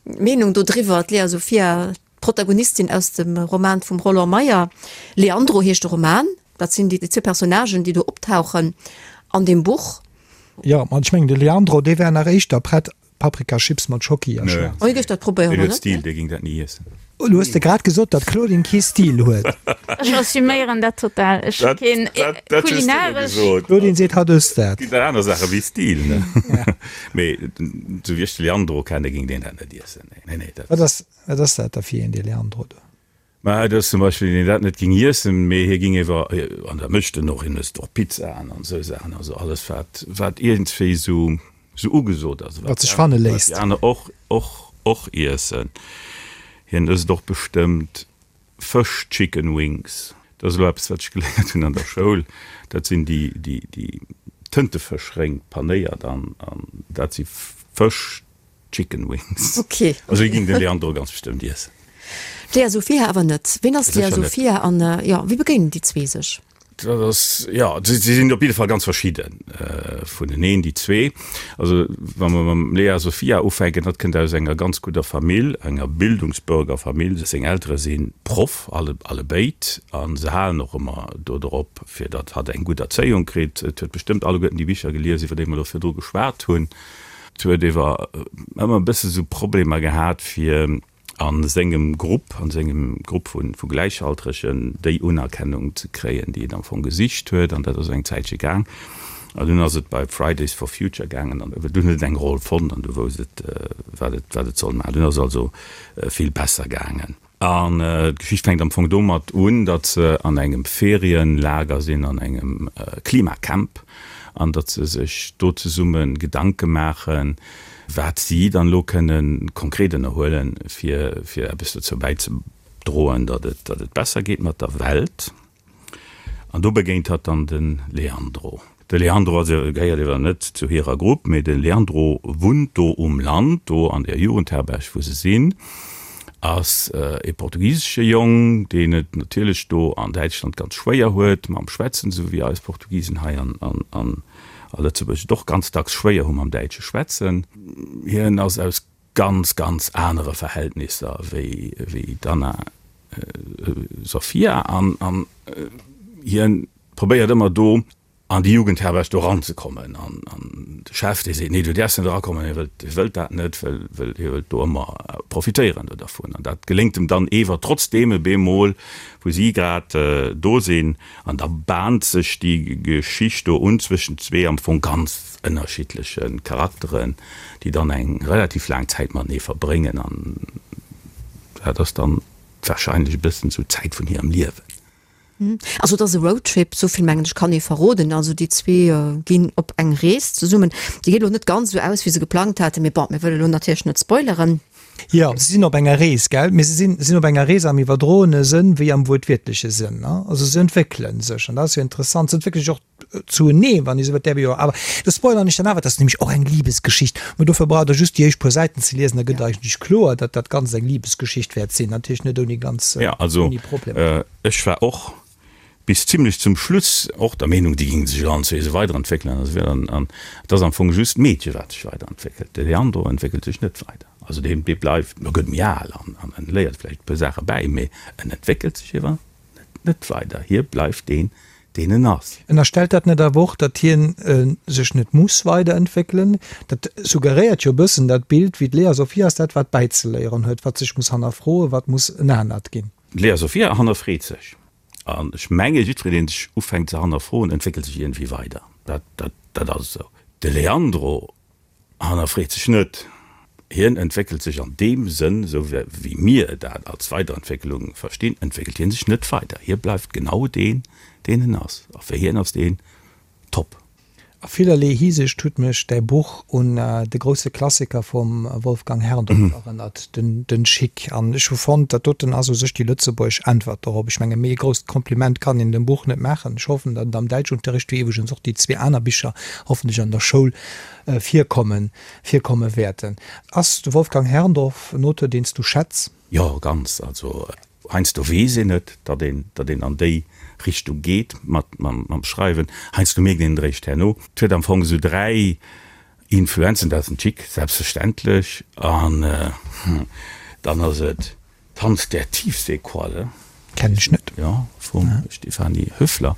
Meenung do driwwer. D'Lea Sophia, d'Protagonistin aus dem Roman vum Roland Meyer, Leandro heescht de Roman, dat sinn déi zwou Personnagen, déi do optauchen an deem Buch. Jo, ma ech mengen de Leandro, dee wär nach éischter prett Paprikachips mat Schocki a Schwaarz. Oh, hie géif dat probéieren, Deen huet Stil, dee géing dat ni iessen. Elo hues de grad gesot, datt d'Claudine kee Stil huet. Ech assuméieren dat total. Ech hu keen kulinaresch. D'Claudine seet, hatt ësst dat. Et ginn aner Saache wéi Stil, ne? Mee esou wéi ech de Leandro kenne, géing deen dat net iessen. Nee, nee, dat. Wat ass, wat ass dat da fir een, dee Leandro do? Mä et ass zum Beispill een, deen dat net ging iessen, mee hie ging ewer, an dat mécht en och, hien ësst och Pizzaen an esou Saachen, also alles wat, wat iergendswéi esou, esou ugesot ass, wat sech fanne léisst. Wat déi aner och, och, och iessen. Hien ësst och bestëmmt Fësch, Chicken Wings, dat ass elo eppes, wat ech geléiert hunn an der Schoul, dat sinn déi, déi, déi Tëntefëschréng panéiert an, an dat si Fësch, Chicken Wings. Ok. Also hie ging den Leandro ganz bestëmmt iessen. D'Lea Sophia awer net. Ween ass d'Lea Sophia an jo, wéi begéinen déi zwee sech? Dat ass, jo, si sinn op jidde Fall ganz verschidde vuneneen, déi zwee. Also wa mer mam Lea Sophia ufänken, hatt kënnt aus enger ganz gudder Famill, enger Bildungsbürgerfamill. Seng Eltere si Proff, alle, allebéid, a se halen och ëmmer dodrop, fir datt hatt eng gutt Erzéiung kritt. Et huet bestëmmt alleguerten déi Bicher gelies, iwwer déi mer elo virdru geschwat hunn. Et huet ewer ëmmer e bësse sou Problemer gehat fir a sengem Grupp, a sengem Grupp vu Gläichaltregen déi Unerkennung ze kréien, déi et am Fong gesicht huet. An dat ass eng Zäitche gaang. An dunn ass et bei Fridays for Future gaangen an dunn huet et eng Roll fonnt an du wousst et, wat et, wat et soll maachen. Dunn ass et also vill besser gaangen. An d'Geschicht fänkt am Fong domat un, datt se an engem Ferienlager sinn, an engem Klimacamp, an datt se sech do zesumme Gedanke maachen, wat si dann elo kënne konkret ënnerhuelen, fir fir eppes dozou bäizedroen, datt et datt et besser geet mat der Welt. An do begéint hatt dann de Leandro. De Leandro ass, gehéiert ewer net zu hirer Grupp, mee de Leandro wunnt do um Land, do an der Jugendherberg wou se sinn, ass e portugisesche Jong, deen et natierlech do an Däitschland ganz schwéier huet mam Schwätzen, esou wéi eis Portugisen hei an a Lëtzebuerg et och ganz dacks schwéier hu mam däitsche Schwätzen. Hien ass aus ganz, ganz anere Verhältnisser wéi, wéi d'Anna Sophia an, an hien probéiert ëmmer do an déi Jugendherberg do eranzekommen an, an de Chef dee seet, nee du däerfs net erakommen, hie wëllt, hie wëllt dat net, well, well hie wëllt do ëmmer profitéieren do dervun an dat geléngt em dann ewer trotzdeem e bemol wou si grad do sinn an da bahnt sech déi Geschicht do un zwëschent zwee am Fong ganz ënnerschiddleche Charakteren, déi dann eng relativ laang Zäit matenee verbréngen an dat ass dann wahrscheinlech e bëssen esou d'Zäit vun hirem Liewen. Also et ass e Roadtrip, esou vill mengen ech kann ee verroden. Also déi zwee ginn op eng Rees zesummen. Déi geet elo net ganz esou aus, wéi se geplangt haten, mee bon, mir wëlle elo natierlech net spoileren. Jo, se sinn op enger Rees, gell? Mee se sinn, sinn op enger Rees am iwwerdroene Sënn wéi am wuertwiertleche Sënn, ne? Also se entwéckele sech an dat ass jo interessant. Se entwéckele sech och Zuenee, wann ee sou wëllt, däerf ee jo awer, do spoilern ech dann awer, et ass nämlech och eng Libesgeschicht, mä dofir braucht der just déi éischt puer Säiten ze liesen, da gëtt eigentlech kloer, datt dat Ganzt eng Libesgeschicht wäert sinn, natierlech net ouni ganz, Ja, also ouni Problemer. ech war och bis zimlech zum Schluss och der Meenung, déi géinge sech allen zwee esou weiderentwéckelen an esou weider, an et ass am Fong just d'Meedche wat sech weiderentwéckelt, de Leandro entwéckelt sech net weider, also deen, dee bleift, e gëtt méi al an en léiert vläicht e puer Saache bäi, mee en entwéckelt sech ewer net weider, hie bleift deen, deen en ass. Ënnerstellt dat net awer och, datt hien sech net muss weiderentwéckelen? Dat suggeréiert jo e bëssen dat Bild, wéi d'Lea Sophie ass dat, wat bäizeléieren huet, wat sech muss hannerfroen, wat muss en anert ginn. D'Lea Sophia hannerfreet sech. An ech menge jiddwereen, deen sech ufänkt ze hannerfroen, entwéckelt sech iergendwéi weider. Dat, dat, dat ass esou. De Leandro Hannerfreet sech net. Hien entwéckelt sech an deem Sënn, esou wéi mir dat als Weiderentwécklung verstinn, entwéckelt hien sech net weider. Hie bleift genau deen, deen en ass. A fir hien ass deen top. A villerlee Hisiicht huet mech däi Buch un de grousse Klassiker vum Wolfgang Herrndorf erënnert, den Schick. An ech hu fonnt, dat doten ass u sech déi lëtzebuergesch Äntwert dorop. Ech menge méi e grousst Kompliment kann een dem Buch net maachen. Ech hoffen, datt et am Däitschunterricht, wéi iwwregens och déi zwee aner Bicher hoffentlech an der Schoul virkommen, virkomme wäerten. Ass de Wolfgang Herrndorf en Auteur, deen s du schätz? Jo, ganz. Also heiansdo weess een et, datt een, datt een an déi Richtung geet mat, mam, mam Schreiwen. Heiansdo mierkt een et eréischt herno. Et huet am Fong esou 3 Influenzen, dat ass den Tschick, selbstverständlech, an dann ass et Tanz der Tiefseequalle. Kennen ech net. Jo, vum Stefanie Höfler.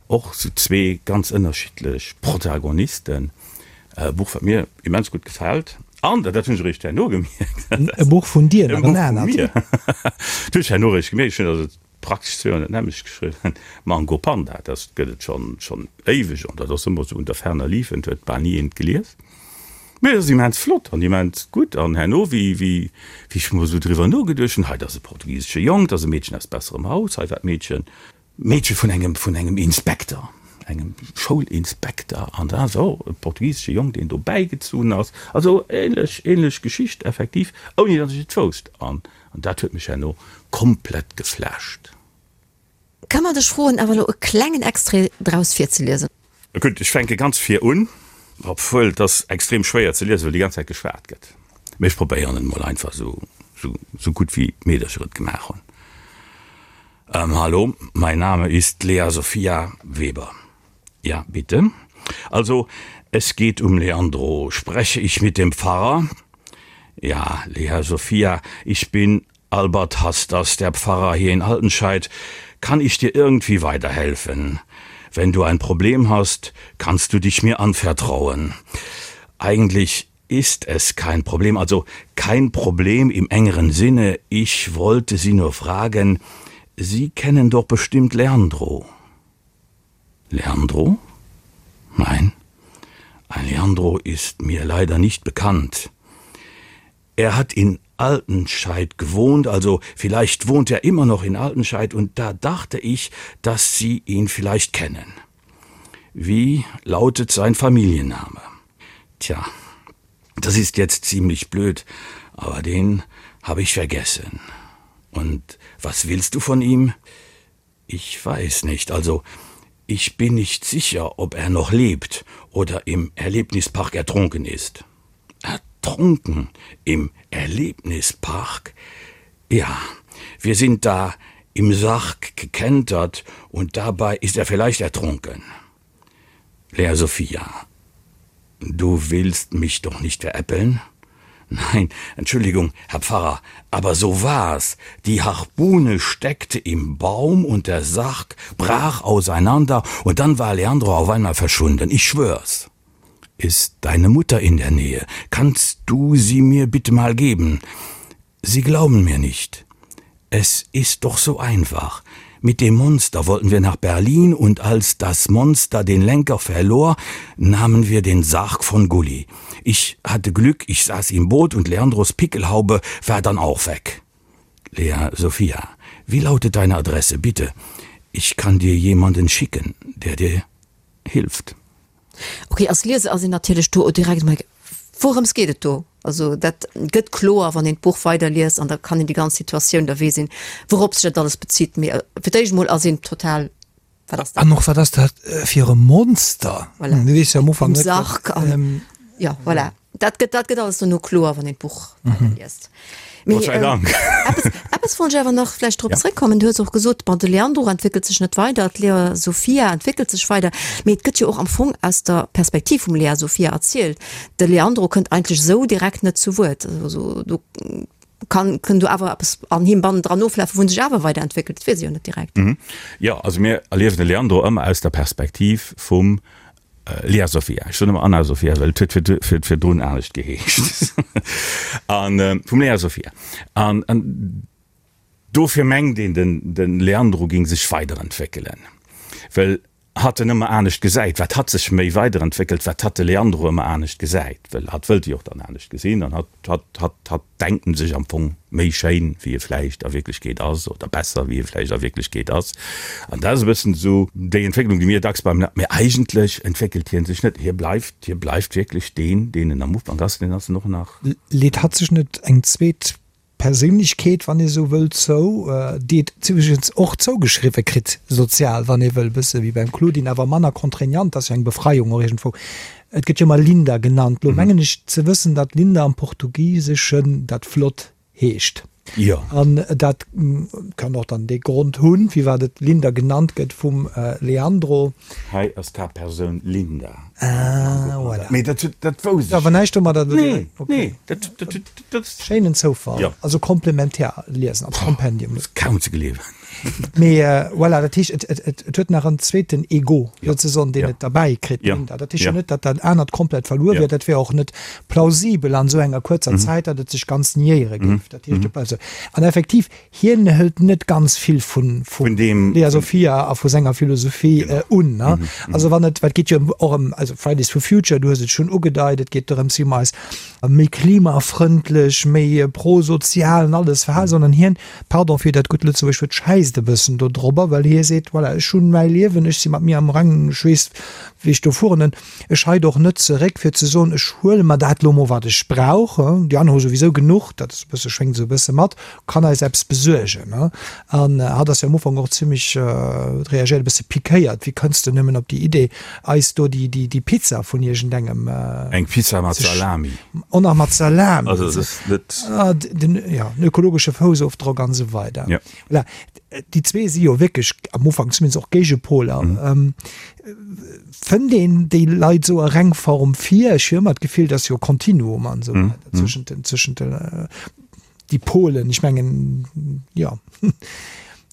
Och sou zwee ganz ënnerschiddlech Protagonisten. E Buch, wat mir immens gutt gefält. An, dat hunn ech eréischt herno gemierkt. E Buch vun dir, nach en anert. E Buch vun mir. Dat hunn ech herno eréischt gemierkt. Ech hunn also praktesch zwee Joer dat nämmlecht geschriwwen. Mango Panda, dat gëtt et schonn, schonn éiweg an dat ass ëmmer sou unter ferner liefen, et huet bal ni een et gelies. Mee et ass immens flott an immens gutt. An herno, wéi, wéi, wéi ech mol esou driwwer nogeduecht hunn, hei, dat ass e portugisesche Jong, dat ass e Meedchen aus besserem Haus, hei war d'Meedchen, Meedche vun engem, vun engem Inspekter, engem Schoulinspekter, an da ass och e portugisesche Jong, deen do bäigezunn ass. Also ähnlech, ähnlech Geschicht effektiv, ouni datt ech et wousst. An, an dat huet mech herno komplett geflasht. Ka mer dech froen, awer elo e klengen Extrait draus virzeliesen? Gutt, ech fänke ganz vir un, obwuel et ass extrem schwéier ze liesen, well déi ganz Zäit geschwat gëtt. Mee ech probéieren et mol einfach esou, esou, esou gutt wéi d'Meedercher et gemaach hunn. Hallo, mein Name ist Lea Sophia Weber. Ja, bitte? Also, es geht um Leandro. Spreche ich mit dem Pfarrer? Ja, Lea Sophia, ich bin Albert Hasters, der Pfarrer hier in Altenscheid. Kann ich dir irgendwie weiterhelfen? Wenn du ein Problem hast, kannst du dich mir anvertrauen. Eigentlich ist es kein Problem, also kein Problem im engeren Sinne. Ich wollte Sie nur fragen, Sie kennen doch bestimmt Leandro. Leandro? Nein, ein Leandro ist mir leider nicht bekannt. Er hat in Altenscheid gewohnt, also vielleicht wohnt er immer noch in Altenscheid und da dachte ich, dass Sie ihn vielleicht kennen. Wie lautet sein Familienname? Tja, das ist jetzt ziemlich blöd, aber den habe ich vergessen. Und was willst du von ihm? Ich weiß nicht, also ich bin nicht sicher, ob er noch lebt oder im Erlebnispark ertrunken ist. Ertrunken im Erlebnispark? Ja, wir sind da im Sarg gekentert und dabei ist er vielleicht ertrunken. Lea Sophia, du willst mich doch nicht veräppeln? Nein, Entschuldigung, Herr Pfarrer, aber so war's. Die Harpune steckte im Baum und der Sarg brach auseinander und dann war Leandro auf einmal verschwunden. Ich schwör's. Ist deine Mutter in der Nähe? Kannst du sie mir bitte mal geben? Sie glauben mir nicht. Es ist doch so einfach. Mit dem Monster wollten wir nach Berlin und als das Monster den Lenker verlor, nahmen wir den Sarg von Gulli. Ich hatte Glück, ich saß im Boot und Leandros Pickelhaube war dann auch weg. Lea Sophia, wie lautet deine Adresse, bitte? Ich kann dir jemanden schicken, der dir hilft. Ok, als Lieser ass een natierlech do direkt emol, wourëms geet et do? Also dat gëtt kloer, wann een d'Buch weiderliest an da kann een déi ganz Situatioun, da weess een, wourop sech dat alles bezitt. Mee fir d'éischt emol ass een total, wat ass dat? An och, wat ass dat fir e Monster? Voilà. Du weess jo am Ufank net, wat. Sarg an, jo, voilà. Dat gëtt, dat gëtt alles dono kloer, wann een d'Buch weiderliest. Mee, Gott sei Dank. eppes, eppes wollt ech awer nach vläicht drop zréckkommen. Du hues och gesot, bon, de Leandro entwéckelt sech net weider, d'Lea Sofia entwéckelt sech weider. Mee et gëtt jo och am Fong aus der Perspektiv vum Lea Sofia erzielt. De Leandro kënnt eigentlech esou direkt net zu Wuert. Also do kann, kënn do awer eppes an him bannendran oflafen, wou en sech awer weiderentwéckelt. Dat weess ee jo net direkt. Jo, also mir erliewen de Leandro ëmmer aus der Perspektiv vum Lea Sophia, ech soen ëmmer Anna Sophia, well et huet vir virdrun anescht geheescht. An vum Lea Sophia. An dofir mengt een, den Leandro géing sech weiderentwéckelen, well. Hatt en ëmmer anescht gesäit, wat hatt sech méi weiderentwéckelt, wat hatt de Leandro ëmmer anescht gesäit, well hatt wëllt e jo och dann anescht gesinn an hatt, hatt, hatt, hatt denkt en sech am Fong méi schéin, wéi e vläicht a Wierklechkeet ass oder besser, wéi e vläicht a Wierklechkeet ass. An dat ass e bëssen esou déi Entwécklung, déi mir dacks beim, mee eigentlech entwéckelt hie sech net, hie bleift, hie bleift wierklech deen, deen en am Ufank ass, deen ass en och nach. Leet hatt sech net eng zweet Perséinlechkeet, wann ee sou wëll, zou, déi et iwwregens och zougeschriwwe kritt, sozial, wann ee wëll, bësse wéi beim Claudine, awer manner contraignant, ass jo eng Befreiung och iergendwou. Et gëtt jo ëmmer Linda genannt. Lo mengen ech ze wëssen, datt Linda am Portugiseschen dat flott heescht. Jo. An dat kann och dann dee Grond hunn, firwat et Linda genannt gëtt vum Leandro. Hei ass d'Haaptpersoun Linda. Ah, voilà. Mee dat, dat wousst ech. Awer näischt domadder. Nee, nee, dat, dat, dat. Schéinen Zoufall. Jo. Also komplementär liesen als Kompendium. Ass kaum ze gleewen. Mee voilà, dat heescht, et, et, et huet nach en zweeten Ego souzesoen, deen et derbäi kritt, d'Linda. Dat heescht jo net, datt dat anert komplett verluer wier. Dat wär och net plausibel an esou enger kuerzer Zäit, datt et sech ganz niéiere géif. Dat heescht, et bleift esou. An effektiv, Hien hëlt net ganz vill vun vun deem Lea Sophia a vu senger Philosophie un. Also wann et, wat geet jo och ëm, also Fridays for Future, du hues et schonn ugedeit, et geet dorëms, wéi mer eis méi klimafrëndlech, méi prosozial an alles verhalen, sondern hien, pardon fir dat gutt Lëtzebuergesch Wuert, schäisst e bëssen do drobber, well hie seet, voilà, ech hunn mäi Liewen, ech si mat mir am Rengen, ech weess, wéi ech do fueren. Ech heit och net zeréck fir ze soen, ech huele mer dat lo mol wat ech brauch, déi aner hu souwisou genuch, dat ass e bësse, schwéngt esou e bësse mat, kann eis eppes besuergen. An hatt ass jo am Ufank och zimmlech, huet reagéiert, e bësse pikéiert, wéi kënns de nëmmen op déi Idee eis do déi, déi, déi Pizza vun iergendengem. Eng Pizza mat Salami. Och nach mat Salami. Also dat ass net. Den, jo, den ökologesche Foussofdrock an esou weider. Jo. Voilà. Déi zwee si jo wierklech am Ufank zumindest och Géigepoler. Fënnt een déi Leit esou a Rengform vir? Ech hu ëmmer d'Gefill, dass jo Kontinuum an esou weider zwëschent den, zwëschent den, déi Polen. Ech mengen, jo.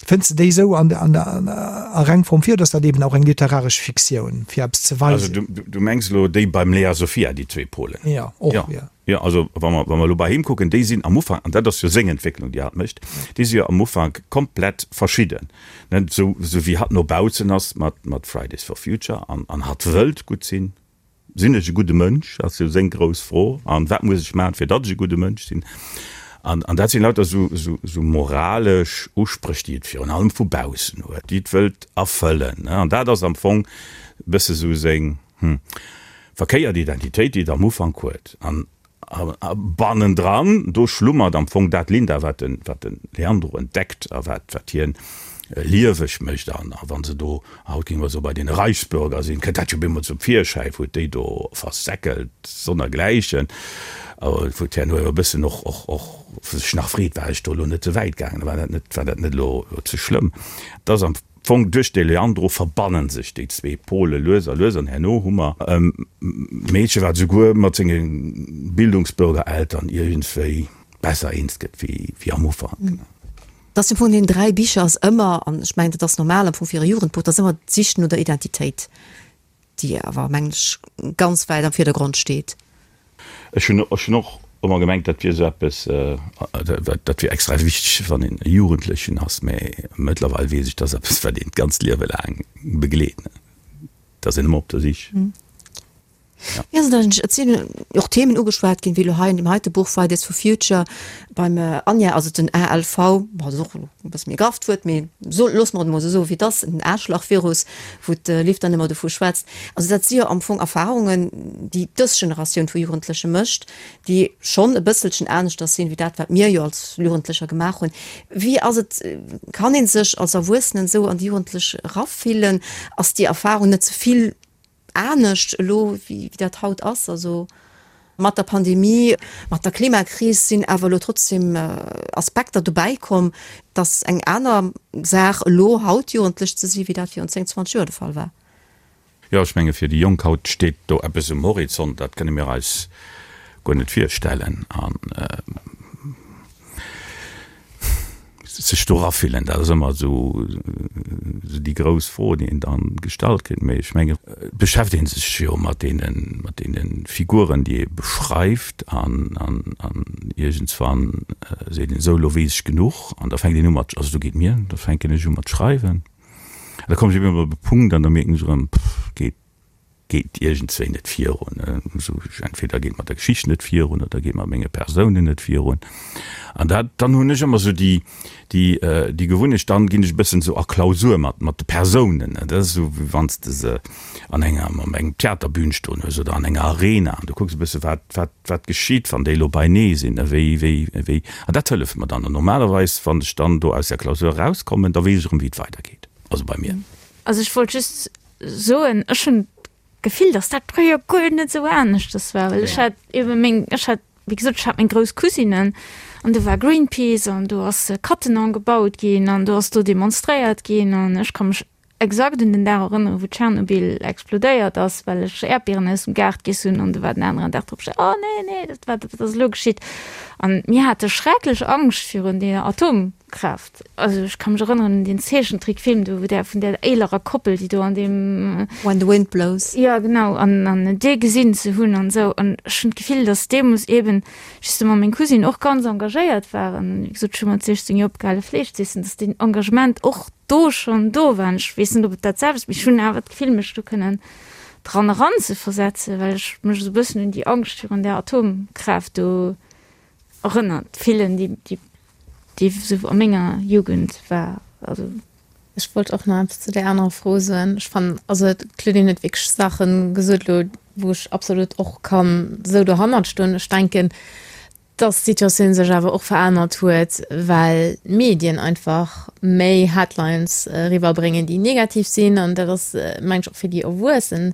Fënns de déi esou an, an, a Rengform vir oder ass dat eben och eng literaresch Fiktioun, fir eppes ze weisen? Also du, du mengs elo déi beim Lea Sophia, déi zwee Polen? Jo, och, jo. Jo, also wa mer, wa mer elo bei him kucken, déi sinn am Ufank, an dat ass jo seng Entwécklung, déi hatt mécht, déi si jo am Ufank komplett verschidden, ne, esou, esou wéi hatt no baussen ass mat, mat Fridays for Future an, an hatt wëllt gutt sinn. Sinn ech e gudde Mënsch, ass jo seng grouss Fro, an wat muss ech maachen, fir datt ech e gudde Mënsch sinn? An, an dat sinn lauter esou, esou, esou moralesch Uspréch, déi et virun allem vu baussen huet, déi et wëllt erfëllen, ne, an dat ass am Fong e bësse sou seng, Hm. Verkéiert Identitéit, déi et am Ufank huet. An bannendran, do schlummert am Fong dat Linda, wat de, wat de Leandro entdeckt a wat, wat hien lieweg mécht. An a wa se do, haut géinge mer soen, bei deene Reichsbürger sinn, kënnt dat jo bemol zum Virschäi, wou et déi do versäckelt sonnergläichen. A wou d'herno e bëssen och, och, och sech nach freet, War ech do elo net ze wäit gaangen? War dat net, war dat net elo ze schlëmm? Et ass am. Fong duerch de Leandro verbannen sech déi zwee Pole lues a lues an herno hu mer e Meedche wat esouguer mat senge Bildungsbürgereltern iergendswéi besser eens gëtt wéi am Ufank. Dass am Fong an deenen 3 Bicher ass ëmmer, an ech mengen dat ass normal am Fong fir e Jugendbuch, dat ass ëmmer d'Sich no der Identitéit. déi awer, mengen ech, ganz wäit am Virdergrond steet. Ech hunn ech hunn och ëmmer gemengt, dat wier esou eppes, dat wier extra wichteg, wann een e Jugendlechen ass, mä mëttlerweil weess ech, dat ass eppes, wat een d'ganzt Liewe laang begleet, et ass een ëmmer op der Sich. Jo, et sinn och Themen ugeschwat ginn, wéi elo hei an deem heite Buch Fridays for Future beim Anja ass et den ALV, bon, dat ass och e bësse méi grafft Wuert, mee so, loosse mer et emol esou soen, wéi et ass, den Aarschlachvirus, wou d'Liv dann ëmmer dovu schwätzt. Also dat si jo am Fong Erfarungen, déi dës Generatioun vu Jugendleche mécht, déi schonn e bësselchen aneschters sinn, wéi dat, wat mir jo als Jugendlecher gemaach hunn. Wéi ass et, kann ee sech als Erwuessenen esou an déi Jugendlech erafillen? Ass déi Erfarung net ze vill anescht elo wéi dat haut ass. Also mat der Pandemie, mat der Klimakris sinn awer elo trotzdem Aspekter dobäi komm, dass eng aner Saach elo haut Jugendlech ze si wéi dat virun 10, 20 Joer de Fall war. Jo, ech menge fir déi Jonk haut steet do eppes um Horizont, dat kënne mir eis guer net virstellen. An Sech do erafillen, dat ass ëmmer esou déi grouss Fro, déi een dann gestallt kritt. Mee ech mengen, et beschäftegt ee sech jo mat deene, mat deene Figuren, déi ee beschreift an, an, an iergendswann seet een esou, elo weess ech genuch an da fänkt een u mat, also esou geet mir, da fänken ech u mat schreiwen. An da kommen ech eben op e Punkt an da mierken ech erëm, pff, geet geet iergendswéi net virun. Esou entweder geet mat der Geschicht net virun oder geet mat menge Persounen net virun. An dat, dann hunn ech ëmmer esou déi, déi, déi Gewunnecht, dann ginn ech e bëssen esou a Klausur mat, mat de Persounen. Dat ass esou, wéi wann s de se an enger, op engem Theaterbün stoen hues oder an enger Arena an du kucks e bësse wat, wat, wat geschitt, wann déi elo beinee sinn, wéi, wéi, wéi. An dat hëlleft mer dann. An normalerweis, wann ech dann do aus där Klausur erauskommen, da weess ech erëm, wéi et weidergeet. Also bei mir. Also ech wollt just soen, ech hunn d'Gefill, datt dat fréier guer net esou aneschters war, well ech hat ebe meng, ech hat, wéi gesot, ech hat meng grouss Cousinen an do war Greenpeace an do ass Cattenom gebaut ginn an do ass do demonstréiert ginn an ech ka mech exakt un den Dag erënneren, wou Tschernobyl explodéiert ass, well ech Äerdbieren aus dem Gaart giess hunn an do war den aneren Dag drop, oh nee, nee, dat war, dat ass elo geschitt. An mir hate schrecklech Angscht virun deeër Atom. Kraaft. Also ech ka mech erënneren un deen Zeechentrickfilm do, wou där vun där élerer Koppel, déi do an deem. When the Wind Blows. Jo, genau, an an dee gesinn ze hunn an esou. An ech hunn d'Gefill, datt deemools eeben justement meng Cousine och ganz engagéiert war an, wéi gesot, ech hu mat 16 Joer opgehale Fleesch z'iessen, datt deen Engagement och do schonn do war. An ech weess net, ob et dat selwecht, mee ech hunn awer d'Gefill, mech do kënnen dran eranzeversetzen, well ech mech esou e bëssen un déi Angscht virun där Atomkraaft do erënnert fillen, déi, déi déi esou a menger Jugend war. Also. Ech wollt och nach eppes zu där anerer Fro soen. Ech fannen, also d'Claudine huet wierklech Saache gesot elo, wou ech absolut och kann esou dohannert stoen. Ech denken, dass d'Situatioun sech awer och verännert huet, well d'Medien einfach méi Headlines eriwwerbréngen, déi negativ sinn. An dat ass, mengen ech, och fir déi Erwuessen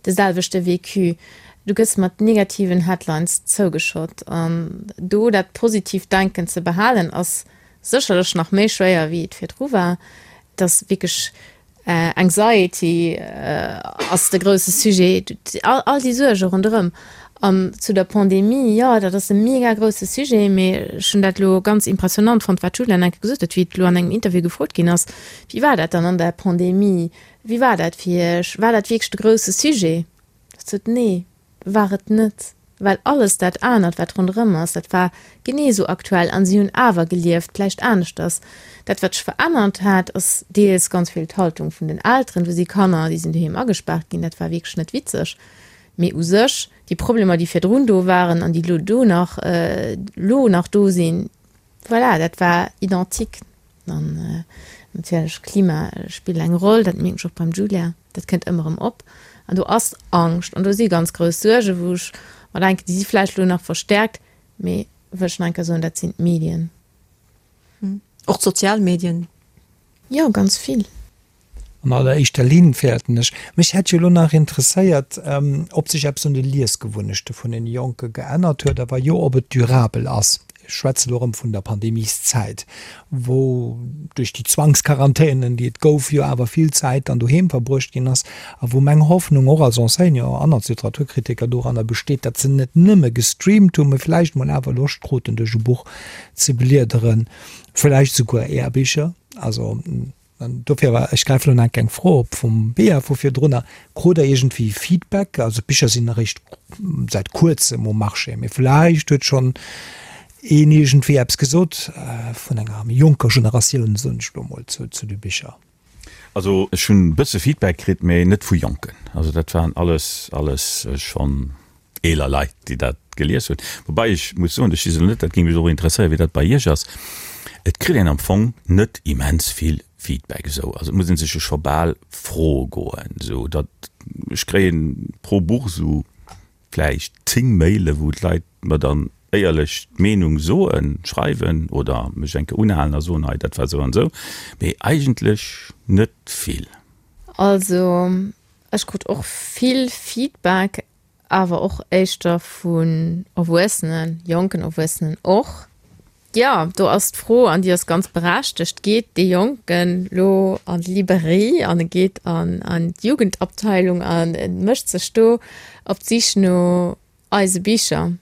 de selwechte Vécu. Du gëss mat negativen Headlines zougeschott an do dat positiivt Denken ze behalen ass sécherlech nach méi schwéier wéi et virdru war. Et ass wierklech Anxiety ass de grousse Sujet, all déi Suerge ronderëm. An zu der Pandemie, jo dat ass e mega grousse Sujet, mee ech hunn dat elo ganz impressionant fonnt wat d'Julia enke gesot huet, wéi et elo an engem Interview gefrot ginn ass, wéi war dat dann an der Pandemie, wéi war dat fir iech, war dat wierklech de grousse Sujet? Ech sot, Nee, war et net, well alles dat anert, wat ronderëm ass, dat war genee esou aktuell an si hunn awer gelieft, vläicht aneschters. Dat, wat sech verännert hat, ass deels ganz vill d'Haltung vun den Elteren. Do si Kanner, déi sinn doheem agespaart ginn, dat war wierklech net witzeg. Mee u sech, déi Problemer, déi virdrun do waren an déi elo do nach, elo nach do sinn, voilà, dat war identique. An natierlech, Klima spillt eng Roll, dat mierken ech och beim Julia, dat kënnt ëmmer erëm op. An do ass Angscht an do si ganz grouss Suergen, wou ech mer denken, déi si vläicht elo nach verstäerkt, mee wëll ech nach eng Kéier soen, dat sinn d'Medien. Och d'sozial Medien. Jo, ganz vill. An alleréischter Linn fäerten ech. Mech hätt jo elo nach interesséiert, ob sech eppes un de Liesgewunnechte vun den Jonke geännert huet a wa jo, ob et durabel ass. Ech schwätze elo erëm vun der Pandemieszäit, wou duerch déi Zwangsquarantänen, déi et gouf, jo awer vill Zäit dann doheem verbruecht ginn ass a wou meng Hoffnung och als Enseignant an als Literaturkritiker doranner besteet, datt se net nëmme gestreamt hunn, mee vläicht mol awer Loscht kruten, duerch e Buch ze bliederen, vläicht souguer Är Bicher. Also. An dofir war, ech gräifen elo nach eng Fro op vum Bea vu virdrunner, Krut Der iergendwéi Feedback? Also d'Bicher sinn eréischt säit Kuerzem um Marché, mee vläicht huet schonn een iergendwéi eppes gesot vun enger méi jonker Generatioun, soen ech elo mol, zu de Bicher. Also ech hunn e bësse Feedback kritt, mee net vu Jonken. Also dat waren alles, alles schonn eeler Leit, déi dat gelies hunn. Woubäi ech muss soen, ech weess elo net, dat géing mech och interesséieren, wéi dat bei Iech ass, et kritt een am Fong net immens vill Feedback esou. Also et muss ee sech jo scho bal froe goen, esou datt ech kréien pro Buch esou vläicht 10 Maile wou d'Leit mer dann éierlech d'Meenung soen, schreiwen oder mech eng Kéier unhalen a soen, hei dat war esou an esou, mee eigentlech net vill. Also ech krut och vill Feedback, awer och éischter vun Erwuessenen, jonken Erwuessenen och. Jo, do ass d'Fro, an déi ass ganz berechtegt, Geet dee Jonken lo an d'Librairie an e geet an an d'Jugendabteilung an e mécht sech do op d'Sich no eise Bicher?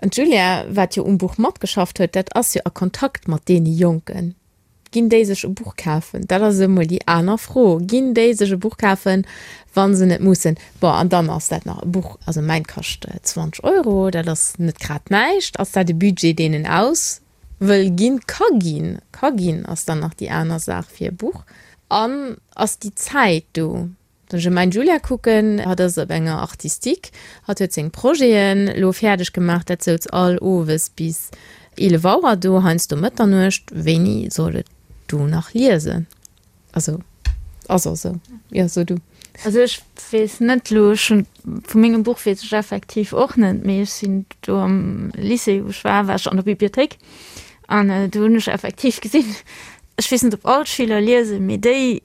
An d'Julia, wat jo um Buch matgeschafft huet, dat ass jo a Kontakt mat deene Jonken. Ginn déi sech e Buch kafen? Dat ass emol déi aner Fro. Ginn déi sech e Buch kafen, wa se net mussen? Bon, an dann ass dat nach e Buch, also mäint kascht 20 Euro, dat ass net grad näischt. Ass dat e Budget, deen en aus wëll ginn? Ka ginn, ka ginn ass dann nach déi aner Saach fir e Buch. An ass déi Zäit do? Wann ech op mäin Julia kucken, hatt ass op enger Artistique, hatt huet seng Projeten elo fäerdeg gemaach, dat souz all owes bis 11 Auer do, heiansdo Mëtternuecht. Wéini soll et do nach liesen? Also ass och esou. Jo, so du. Also ech weess net elo, ech hunn, vu mengem Buch weess ech effektiv och net, mee ech sinn do am Lycée wou ech war, war ech an der Bibliothéik an do hunn ech effektiv gesinn, ech weess net ob all d'Schüler liesen, mee déi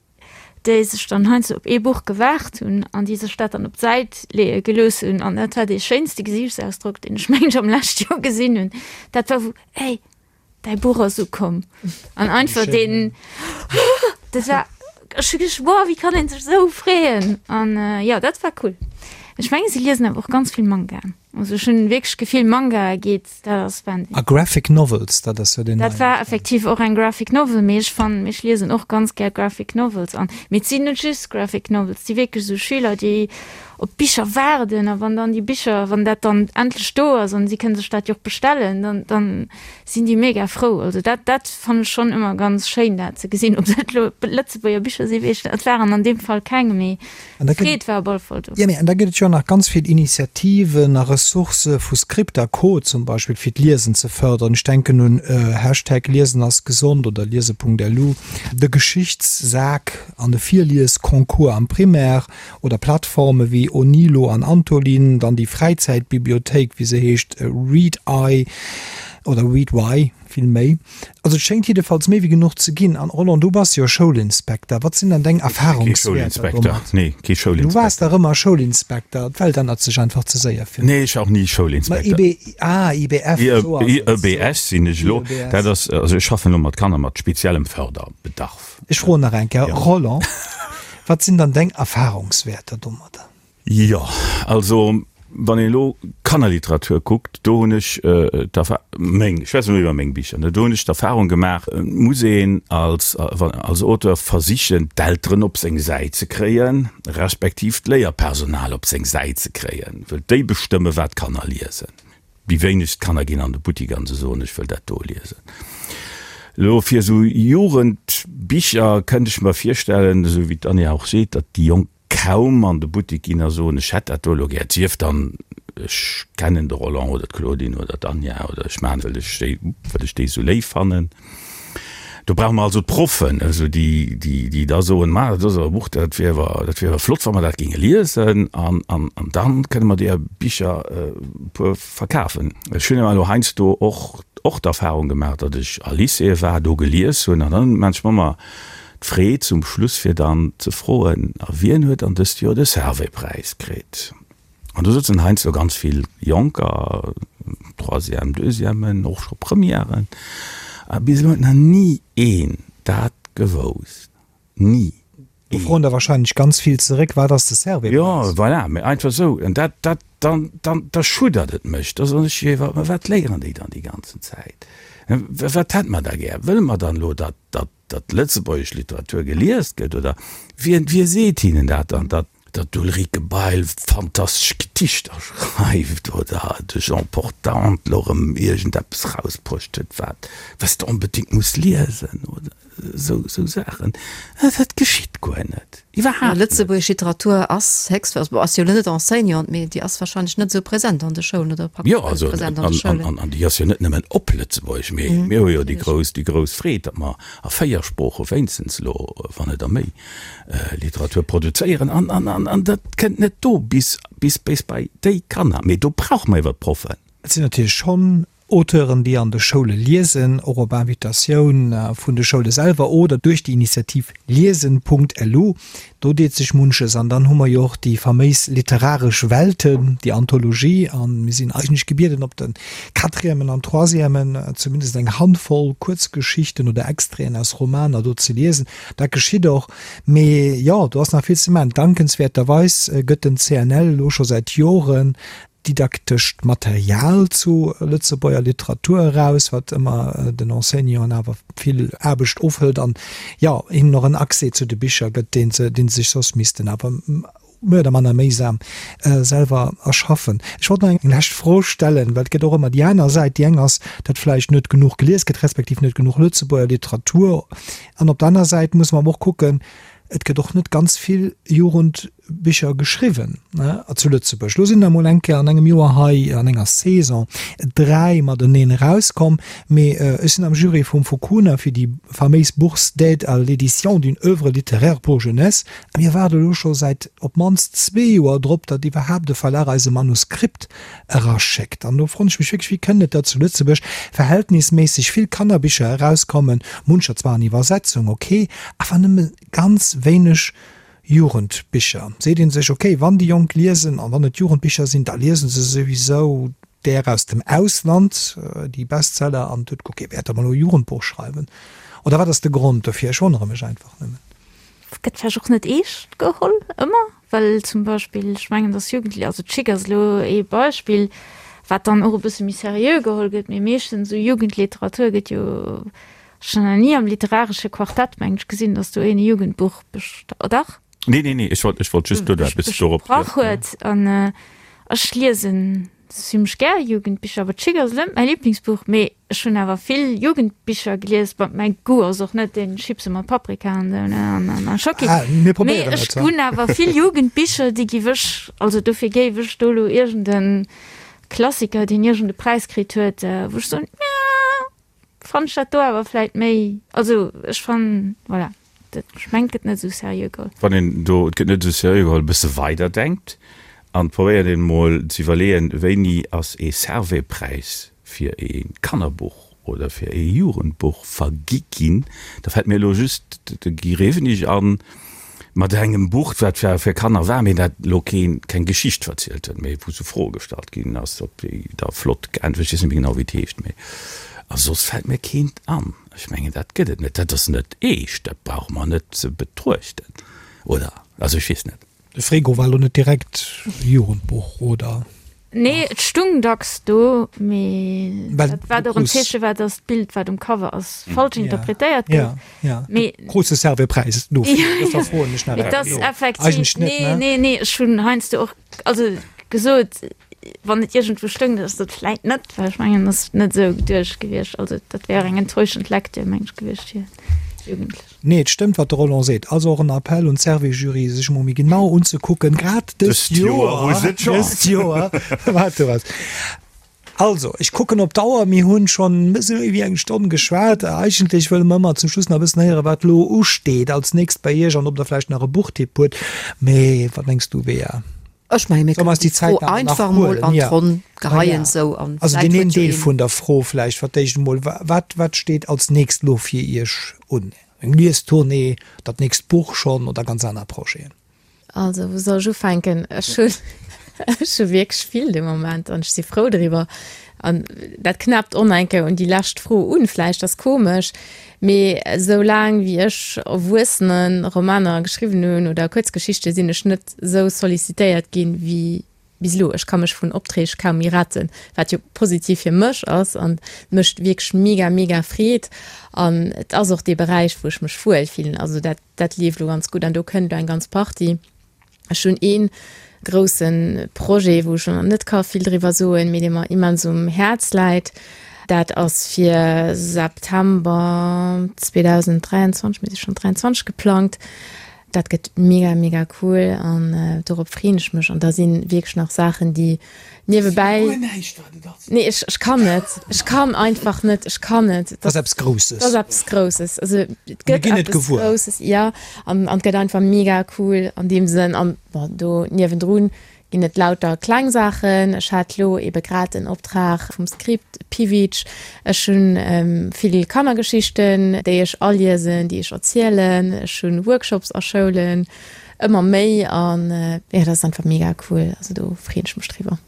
déi sech dann heiansdo op ee Buch gewaart hunn an déi sech dat dann op d'Säit leeë gelooss hunn an dat war dee schéinste Gesiichtsausdrock deen ech mengen ech am leschte Joer gesinn hunn, dat war wou, Hey, Däi Buch ass ukomm. An einfach deen, dat war, ech hu geduecht, wow, wéi kann een sech esou freeën? An jo, dat war cool. Ech mengen, si liesen awer och ganz vill Mangaen. Also ech hunn wierklech d'Gefill, Mangae geet, dat ass Wahnsinn. A Graphic Novels, dat ass jo deen Dat war effektiv och eng Graphic Novel, mee ech fannen, ech liesen och ganz gär Graphic Novels an, mee et sinn net just Graphic Novels, et si wierklech esou Schüler, déi op d'Bicher waarden a wann dann déi Bicher, wann dat dann endlech do ass an si kënne sech dat jo och bestellen, dann, dann sinn déi mega frou. Also dat, dat fannen ech schonn ëmmer ganz schéin dat ze gesinn. Ob dat elo Lëtzebuerger Bicher sinn, weess ech net, et waren an deem Fall keng, mee d'Freed war op alle Fall do. Jo, mee an da gëtt et jo nach ganz vill Initiativen a Ressourcë vu Script a Co. Zum Beispill, fir d'Liesen ze fërderen. Ech denken un Hashtag Liesen ass gesond oder liese.lu, de Geschichtssak an de Virliesconcours am Primaire. Oder Plattforme wéi Onilo an Antolin, dann déi Fräizäitbibliothéik, wéi se heescht, Read-Eye oder Read-Why vill méi. Also et schéngt jiddefalls méi wéi genuch ze ginn. An Roland, du bass jo Schoulinspekter, wat sinn dann deng Erfahrungswäerter domat? Nee, kee Schoulinspekter. Du waars dach ëmmer Schoulinspekter, d'Welt ännert sech einfach ze séier fir mech. Nee, ech war och ni Schoulinspekter. Ma IB, ah, IBF, esou ass et. IEBS sinn ech elo. Dat ass, also ech schaffen elo mat Kanner mat speziellem Förderbedarf. Ech froen nach eng Kéier, Roland, wat sinn dann deng Erfahrungswäerter domadder? Jo, also wann een elo Kannerliteratur kuckt, do hunn ech d'Erfa-, meng, ech schwätzen elo iwwer meng Bicher, ne, do hunn ech d'Erfahrung gemaach, et muss een als, als Auteur versichen, d'Elteren op seng Säit ze kréien, respektiv d'Léierpersonal op seng Säit ze kréien, wëll déi bestëmme wat d'Kanner liesen. Déi wéinegst Kanner ginn an de Buttik an se soen, ech wëll dat do liesen. Elo fir esou Jugendbicher kënnt ech mer virstellen, esou wéi d'Anja och seet, datt déi Jonk kaum an de Buttik ginn a soen, ech hätt dat do elo gär. Et sief dann, ech kennen de Roland oder d'Claudine oder d'Anja oder ech maachen, well ech déi, well ech déi esou léif fannen. Do brauche mer also d'Proffen, also déi, déi, déi da soen, Ma, dat ass awer e Buch, dat wier awer, dat wier awer flott, wa mer dat géinge liesen an, an, an da kënne mer deeër Bicher e puer verkafen. Ech hunn awer elo heiansdo och, och d'Erfahrung gemaach, datt ech a Lycéeë war, do gelies hunn an dann maan ech mer ëmmer d'Freed zum Schluss, fir dann ze froen, A wien huet dann dëst Joer de Servais-Präis kritt? An do sëtzen heiansdo ganz vill Jonker, Troisième, Deuxièmen, och scho Premièren, a bis elo huet nach ni een dat gewousst. Ni Do een. froen der wahrscheinlech ganz vill zeréck, Wat ass de Servais-Präis? Jo, voilà, mä einfach esou. An dat, dat, dann, dann, da schuddert et mech. Da soen ech, jo, mä wat léieren déi dann déi ganzen Zäit? Wat hätte mer da gär? Wëlle mer dann elo, datt, datt, datt lëtzebuergesch Literatur gelies gëtt? Oder wien, wie seet hinnen dat dann, datt, datt d'Ulrike Bail fantastesch Gedichter schreift oder de Jean Portante elo erëm iergendeppes rausbruecht huet, wat, wat s de onbedéngt muss liesen oder esou, esou Saachen? Dat geschitt guer net, iwwerhaapt net. Lëtzebuergesch Literatur ass héchst, also ass jo elo net Enseignante, mee déi ass wahrscheinlech net esou present an de Schoulen oder praktesch Jo, also net present an de Schoulen. an, an déi ass jo net nëmmen op Lëtzebuergesch, mee mir hu jo déi grouss, déi grouss Freed, datt mer a 4 Sprooche wéinstens elo, wann net a méi, Literatur produzéieren an, an, an, an dat kënnt net do bis, bis, bis bei déi Kanner. Mee do brauche mer iwwer d'Proffen. Et sinn natierlech schonn Auteuren, déi an de Schoule liesen, och op Invitatioun vun de Schoule selwer oder duerch déi Initiativ Liesen.lu. Do deet sech munches. An dann hu mer jo och déi faméis literaresch Welten, déi Anthologie. A mir sinn eigentlech gebieden, op de Quatrièmen an Troisièmen zumindest eng Handvoll Kuerzgeschichten oder Extraiten aus Romaner do ze liesen. Dat geschitt och. Mee jo, do ass nach vill ze maachen. Dankenswäerterweis gëtt den CNL elo scho säit Joren didaktescht Material zu Lëtzebuerger Literatur eraus, wat ëmmer den Enseignanten awer vill Aarbecht ofhëlt an, jo, hinnen och en Accès zu de Bicher gëtt, deen se, deen se sech soss missten awer. méi oder manner méisam selwer erschaffen. Ech wollt nach eng lescht Fro stellen, well et gëtt och ëmmer déi aner Säit. Déi eng ass, datt vläicht net genuch gelies gëtt, respektiv net genuch Lëtzebuerger Literatur. An op der aner Säit musse mer awer och kucken, et gëtt och net ganz vill Jugendbicher geschriwwen zu Lëtzebuerg. Elo sinn der emol eng Kéier an engem Joer hei an enger Saison 3 mateneen erauskomm, mee ech sinn am Jury vum Fukuna fir déi faméis Bourse d'aide à l'édition d'une œuvre littéraire pour jeunesse a mir waarde elo scho säit op d'mannst zwee Joer drop, datt iwwerhaapt e Verlag eis e Manuskript eraschéckt. An do froen ech mech wierklech, wéi kënnt et, datt zu Lëtzebuerg verhältnisméisseg vill Kannerbicher erauskommen, muncher zwar an Iwwersetzung, ok, awer nëmme ganz wéineg Jugendbicher. Seet ee sech, ok, wann déi Jonk liesen an wann et Jugendbicher sinn, da liese se souwisou där aus dem Ausland, déi Bestseller, an et huet guer kee Wäert, datt mer elo e Jugendbuch schreiwen. Oder wat ass de Grond dofir? Ech wonnere mech einfach nëmmen. Gëtt vläicht och net eescht geholl ëmmer, well zum Beispill, ech mengen, datt Jugendli-, also d'Chick ass elo ee Beispill, wat dann och e bësse méi seriö geholl gëtt, mee meeschtens esou Jugendliteratur gëtt jo, ech hunn nach ni am literaresche Quartett, mengen ech, gesinn, datt do een e Jugendbuch best-, oh dach? Nee, nee, nee, ech wollt, ech wollt just do eppes dorop. Besprach huet. An ech liesen zimmlech gär Jugendbicher, awer d'Chick ass elo net mäi Liblingsbuch, mee ech hunn awer vill Jugendbicher gelies. Bon, mäi Goût ass och net deen Chipse mat Paprika an esou, ne, an, an, a Schocki. Ah, mir Mee probéieren ech et, ha. hunn awer vill Jugendbicher, déi giff ech, also dofir géif ech do elo iergend e Klassiker, deen iergend e Präis kritt huet, wou ech soen, ja, Fann ech dat do awer vläit méi, also ech fannen, voilà, dat, ech mengen et gëtt net esou seriö geholl. Wann een do, et gëtt net esou seriö geholl, e bësse weider denkt an probéiert een emol ze iwwerleeën, wéini ass ee Servais-Präis fir ee Kannerbuch oder fir ee Jugendbuch vergi ginn, da fält mir elo just de Guy Rewenig an, Mat engem Buch, wat zwar fir Kanner war, mee dat elo keen, keng Geschicht verzielt huet, mee wou sou Froe gestallt ginn ass, op déi da flott geäntwert, ech weess net méi genau wéi et heescht, mee a soss fält mir keent an. Ech mengen, dat gëtt et net, dat ass net eescht, dat brauche mer net ze betruechten, oder? Also ech weess net. De Frego war elo net direkt Jugendbuch, oder? Nee, et stung dacks do, mee dat wat och en Zeeche war, datt d'Bild, wat um Cover ass, falsch interpretéiert gouf. Mee du krus de Servais-Präis dofir, dofir froen ech nach. Et ass effektiv, nee, nee, nee, ech hunn heiansdo och, also gesot, wann et iergendwou stoung, datt ass dat vläit net, well ech mengen, dat ass net esou geduecht gewiescht. Also dat wär eng enttäuschend Lektür, meng ech, gewiescht fir Jugendlech. Nee, et stëmmt, wat de Roland seet. Also och en Appell un d'Service-Jury, sech emol méi genau unzekucken, grad dëst Joer, dëst Joer, wat do ass. Also, ech kucken op d'Auer, mir hunn schonn e bësse méi wéi eng Stonn geschwat. Eigentlech wëlle mer ëmmer zum Schluss nach e bëssen héieren, wat elo usteet als nächst bei Iech an ob Der vläicht nach e Buchtipp hutt. Mee wat mengs du, Bea? Ech mengen, mir kënnen déi Fro einfach emol an d'Ronn geheien esou an Also deen een Deel vun der Fro vläicht fir d'éischt emol, Wat, wat steet als nächst elo fir Iech un? Eng Liestournée, dat nächst Buch schonn oder ganz aner Projeten? Also wou soll ech ufänken? Ech hunn, ech hu wierklech vill de Moment an ech si frou driwwer. An dat knäppt och nach eng Kéier un déi lescht Fro un, vläicht ass komesch, mee esou laang wéi ech Erwuessene-Romaner geschriwwen hunn oder Kuerzgeschichte sinn ech net esou sollicitéiert ginn wéi bis elo. Ech ka mech vun Opträg kaum méi retten, wat jo positiv fir mech ass an et mécht wierklech mega, mega Freed. An et ass och dee Beräich, wou ech mech wuel fillen. Also dat, dat leeft elo ganz gutt an do kënnt elo eng ganz Partie. Ech hunn ee grousse Projet, wou ech elo nach net ka vill driwwer soen, mee dee mer immens um Häerz läit. Dat ass fir September 2023, mir si schonn 23, geplangt. Dat gëtt mega, mega cool an dorop freeën ech mech. An da si wierklech nach Saachen, déi niewebäi. Guer näischt, wat et ass. Nee, ech, ech kann net. Ech kann einfach net. Ech kann net. Dat ass eppes Grousses. Dat ass eppes Grousses. Also, et gëtt eppes Grousses, ja. An, an et gëtt einfach mega cool an deem Sënn. An, bon, do niewendrun ginn et lauter kleng Saachen. Ech hat lo ebe grad en Optrag vum Script Piwitsch. Ech hunn vill Kannergeschichten, déi ech aliesen, déi ech erzielen. Ech hunn Workshops a Schoulen. Ëmmer méi an jo dat ass einfach mega cool, also do freen ech mech driwwer.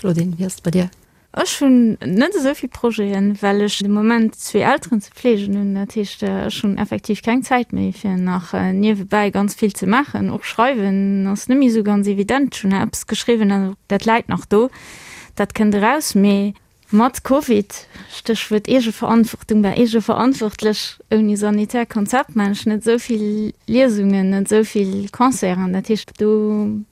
Claudine, wéi ass et bei dir? Ech hunn net esou vill Projeten, well ech de Moment zwee Elteren ze fleegen hunn. Dat heescht, ech hunn effektiv keng Zäit méi fir nach niewebäi ganz vill ze maachen. Och schreiwen ass net méi esou ganz evident. Ech hunn eppes geschriwwen, dat läit nach do, dat kënnt eraus, mee Mat Covid, Stéchwuert Eegeverantwortung, war eegeverantwortlech, ouni sanitär Konzept maan ech net esou vill Liesungen, net esou vill Concerten. Dat heescht, do.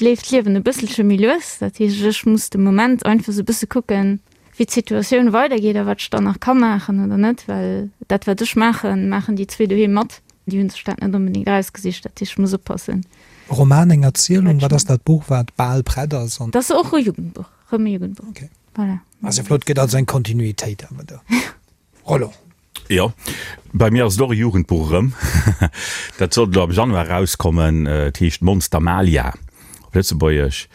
leeft d'Liewen e bësselche méi lues. Dat heescht, ech muss de Moment einfach esou e bësse kucken, wéi d'Situatioun weidergeet a wat ech dann nach ka maachen oder net, well dat wat ech maachen, maachen déi zwee doheem mat. Déi hunn sech dat net onbedéngt erausgesicht, dat heescht, ech muss oppassen. E Roman, eng Erzielung, wat ass dat Buch, wat bal prett ass? Dat ass och e Jugendbuch, erëm e Jugendbuch. Okay. Voilà. Ass jo flott, gëtt also eng Kontinuitéit awer do. Roland. Jo, bei mir ass et och e Jugendbuch erëm. Dat sollt elo am Januar erauskommen. Et heescht Monster Malia op Lëtzebuergesch.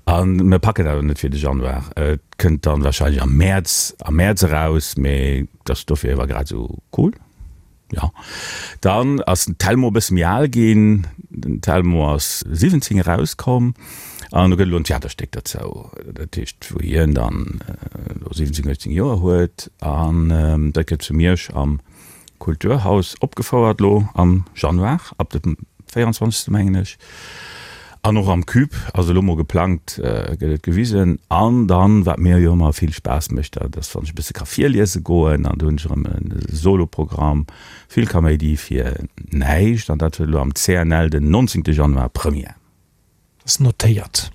A mir packen dat awer net fir de Januar. Et kënnt dann wahrscheinlech am Mäerz, am Mäerz eraus, mee et ass dofir ewer grad esou cool. Jo, dann ass den Telmo e bësse méi al ginn. Den Telmo ass 17 erauskomm an do gëtt elo en Theaterstéck derzou. Dat heescht, wou hien dann elo 17, 18 Joer huet an dat gëtt zu Miersch am Kulturhaus opgefouert elo am Januar, ab dem 24. Mengen ech. An och am Cube ass elo mol geplangt, gëtt et gewisen. An dann, wat mir jo ëmmer vill Spaass mécht, dat ass, wann ech e bësse ka virliese goen. An do hunn ech erëm e Soloprogramm, vill Kaméidi fir näischt. An dat huet elo am CNL den 19. Januar Première. Ass notéiert.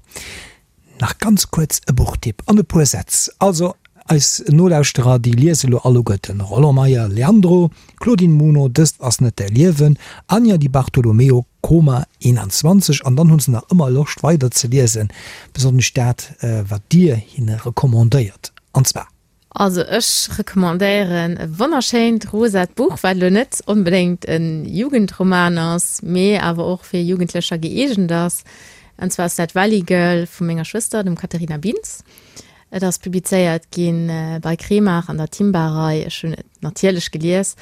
Nach ganz kuerz e Buchtipp an e puer Sätz. Also eis Nolauschterer, déi liese lo alleguerten Roland Meyer, Leandro, Claudine Muno, Dëst ass net däi Liewen, Anja Di Bartolomeo, Koma 21, an dann hu se nach ëmmer Loscht weider ze liesen, besonnesch dat wat dir hinne recommandéiert, an zwar. Also ech recommandéieren e wonnerschéint rosat Buch, wat elo net onbedéngt e Jugendroman ass, mee awer och fir Jugendlecher gëeegent ass. An zwar ass dat Valley Girl vu menger Schwëster, dem Katharina Bintz. Et ass publizéiert gi bei Kremart an der Timba-Rei. Ech hunn et natierlech gelies.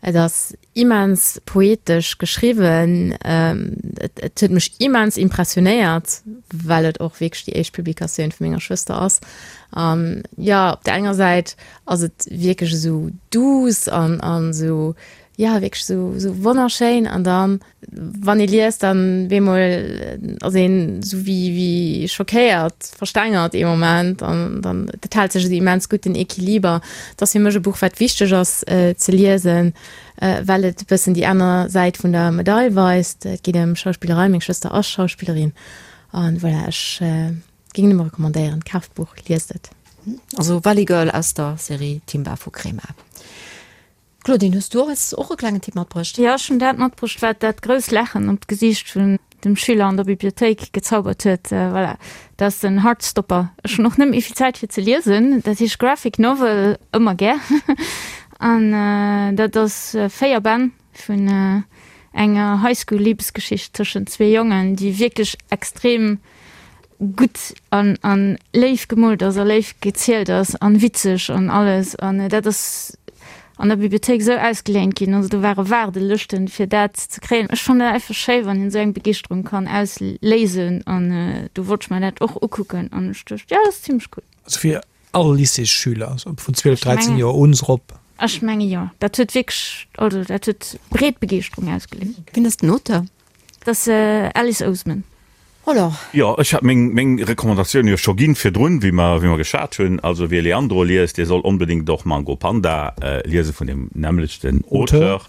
Et ass immens poetesch geschriwwen. Et huet mech immens impressionéiert, well et och wierklech déi éischt Publikatioun vu menger Schwëster ass. An jo, op der enger Säit ass et wierklech esou duuss an an esou, jo, wierklech esou esou wonnerschéin. An dann Wann ee liest, dann bemol ass een sou wéi wéi schockéiert, verstengert ee Moment an dann dat hält sech esou immens gutt den Equiliber. Et ass fir mech e Buch wat wichteg ass ze liesen, well et e bëssen déi aner Säit vun der Medail weist. Et geet ëm Schauspillerei, meng Schwëster ass Schauspillerin an voilà, ech géing nëmme recommandéieren, kaaft d'Buch, liest et. Also Valley Girl aus der Serie Timba vu Crema. Claudine, hues du eis och e klengen Tipp matbruecht? Jo, ech hunn dat matbruecht, wat dat grousst Laachen op d'Gesiicht vun dem Schüler an der Bibliothéik gezaubert huet. Voilà, dat ass den Heartstopper. Ech hunn och net méi vill Zäit fir ze liesen. Dat heescht Graphic Novel, ëmmer gär. An dat ass 4 Bänn vun enger Highschool-Libesgeschicht tëschent zwee Jongen, déi wierklech extrem gutt an an léif gemoolt ass a léif gezielt ass an witzeg an alles an dat ass an der Bibliothéik esou ausgeléint ginn, also do ware Waardelëschten fir dat ze kréien. Ech fannen dat einfach schéi wann een esou eng Begeeschterung kann ausléisen an do wollt ech mer dat och ukucken an ech duecht jo dat ass zimmlech cool. Also fir all Lycéesschüler, also vun 12, 13 Joer un erop? Ech menge jo, dat huet wierklech, also dat huet breet Begeeschterung ausgeléist. Wien ass den Auteur? Dat ass Alice Oseman. Voilà. Jo, ech hat meng, meng Recommandatioun jo scho ginn virdrun, wéi mer, wéi mer geschwat hunn. Also wie Leandro liest, dee soll onbedéngt och Mango Panda liese vun deem nämmlechten Auteur.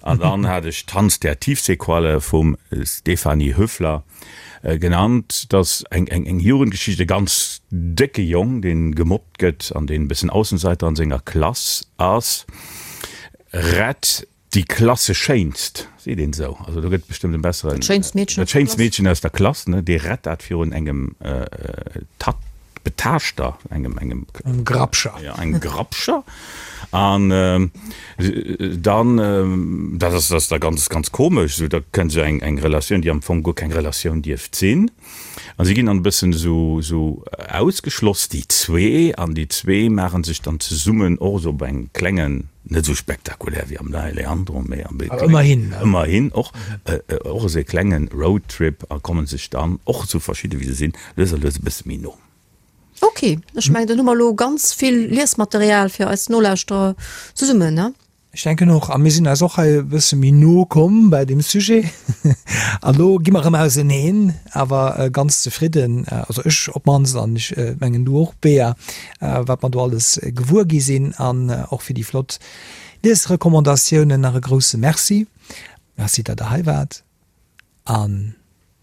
An dann hat ech Tanz der Tiefseequalle vum Stefanie Höfler genannt. Dat ass eng, eng, eng Jugendgeschicht, e ganz décke Jong, dee gemobbt gëtt an deen e bëssen Aussenseiter an senger Klass ass, rett Déi Klasseschéinst, seet een esou, also do gëtt et bestëmmt en besseren, Dat schéinst Meedchen dat schéinst Meedchen aus der Klass, ne, dee rett dat virun engem Tat, Betaaschter, engem, engem, Engem Grapscher. Ja, engem Grapscher. An dann, dat ass, dat ass da ganz, ganz komesch, esou, da kënnt esou eng, eng Relatioun, déi am Fong guer keng Relatioun dierft sinn. A si ginn dann e bëssen esou, esou ausgeschloss, déi zwee, an déi zwee maache sech dann zesummen och esou op engem klengen, net esou spektakulär wéi am Neie Leandro, mee am Awer ëmmerhin, ne? Ëmmerhin och, och esou e klenge Roadtrip a komme sech dann, och esou verschidde wéi se sinn, lues a lues e bësse méi no. Ok, ech mengen, dann hu mer elo ganz vill Liesmaterial fir eis Nolauschterer zesummen, ne? Ech denken och, a mir sinn eis och hei e bësse méi no komm bäi deem Sujet. An elo gi mer erëm auseneen, awer ganz zefridden, also ech op d'mannst an ech mengen du och, Bea, wat mer do alles gewuer gi sinn. An och fir déi flott Liesrecommandatiounen nach e grousse Merci. Merci, datt Der hei waart an.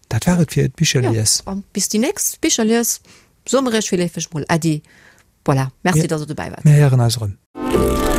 Dat war et fir d'Bicherlies. Jo, a bis déi nächst Bicherlies soe mer iech virleefeg mol Äddi. Voilà, merci, dass der dobäi waart. Mir héieren eis erëm.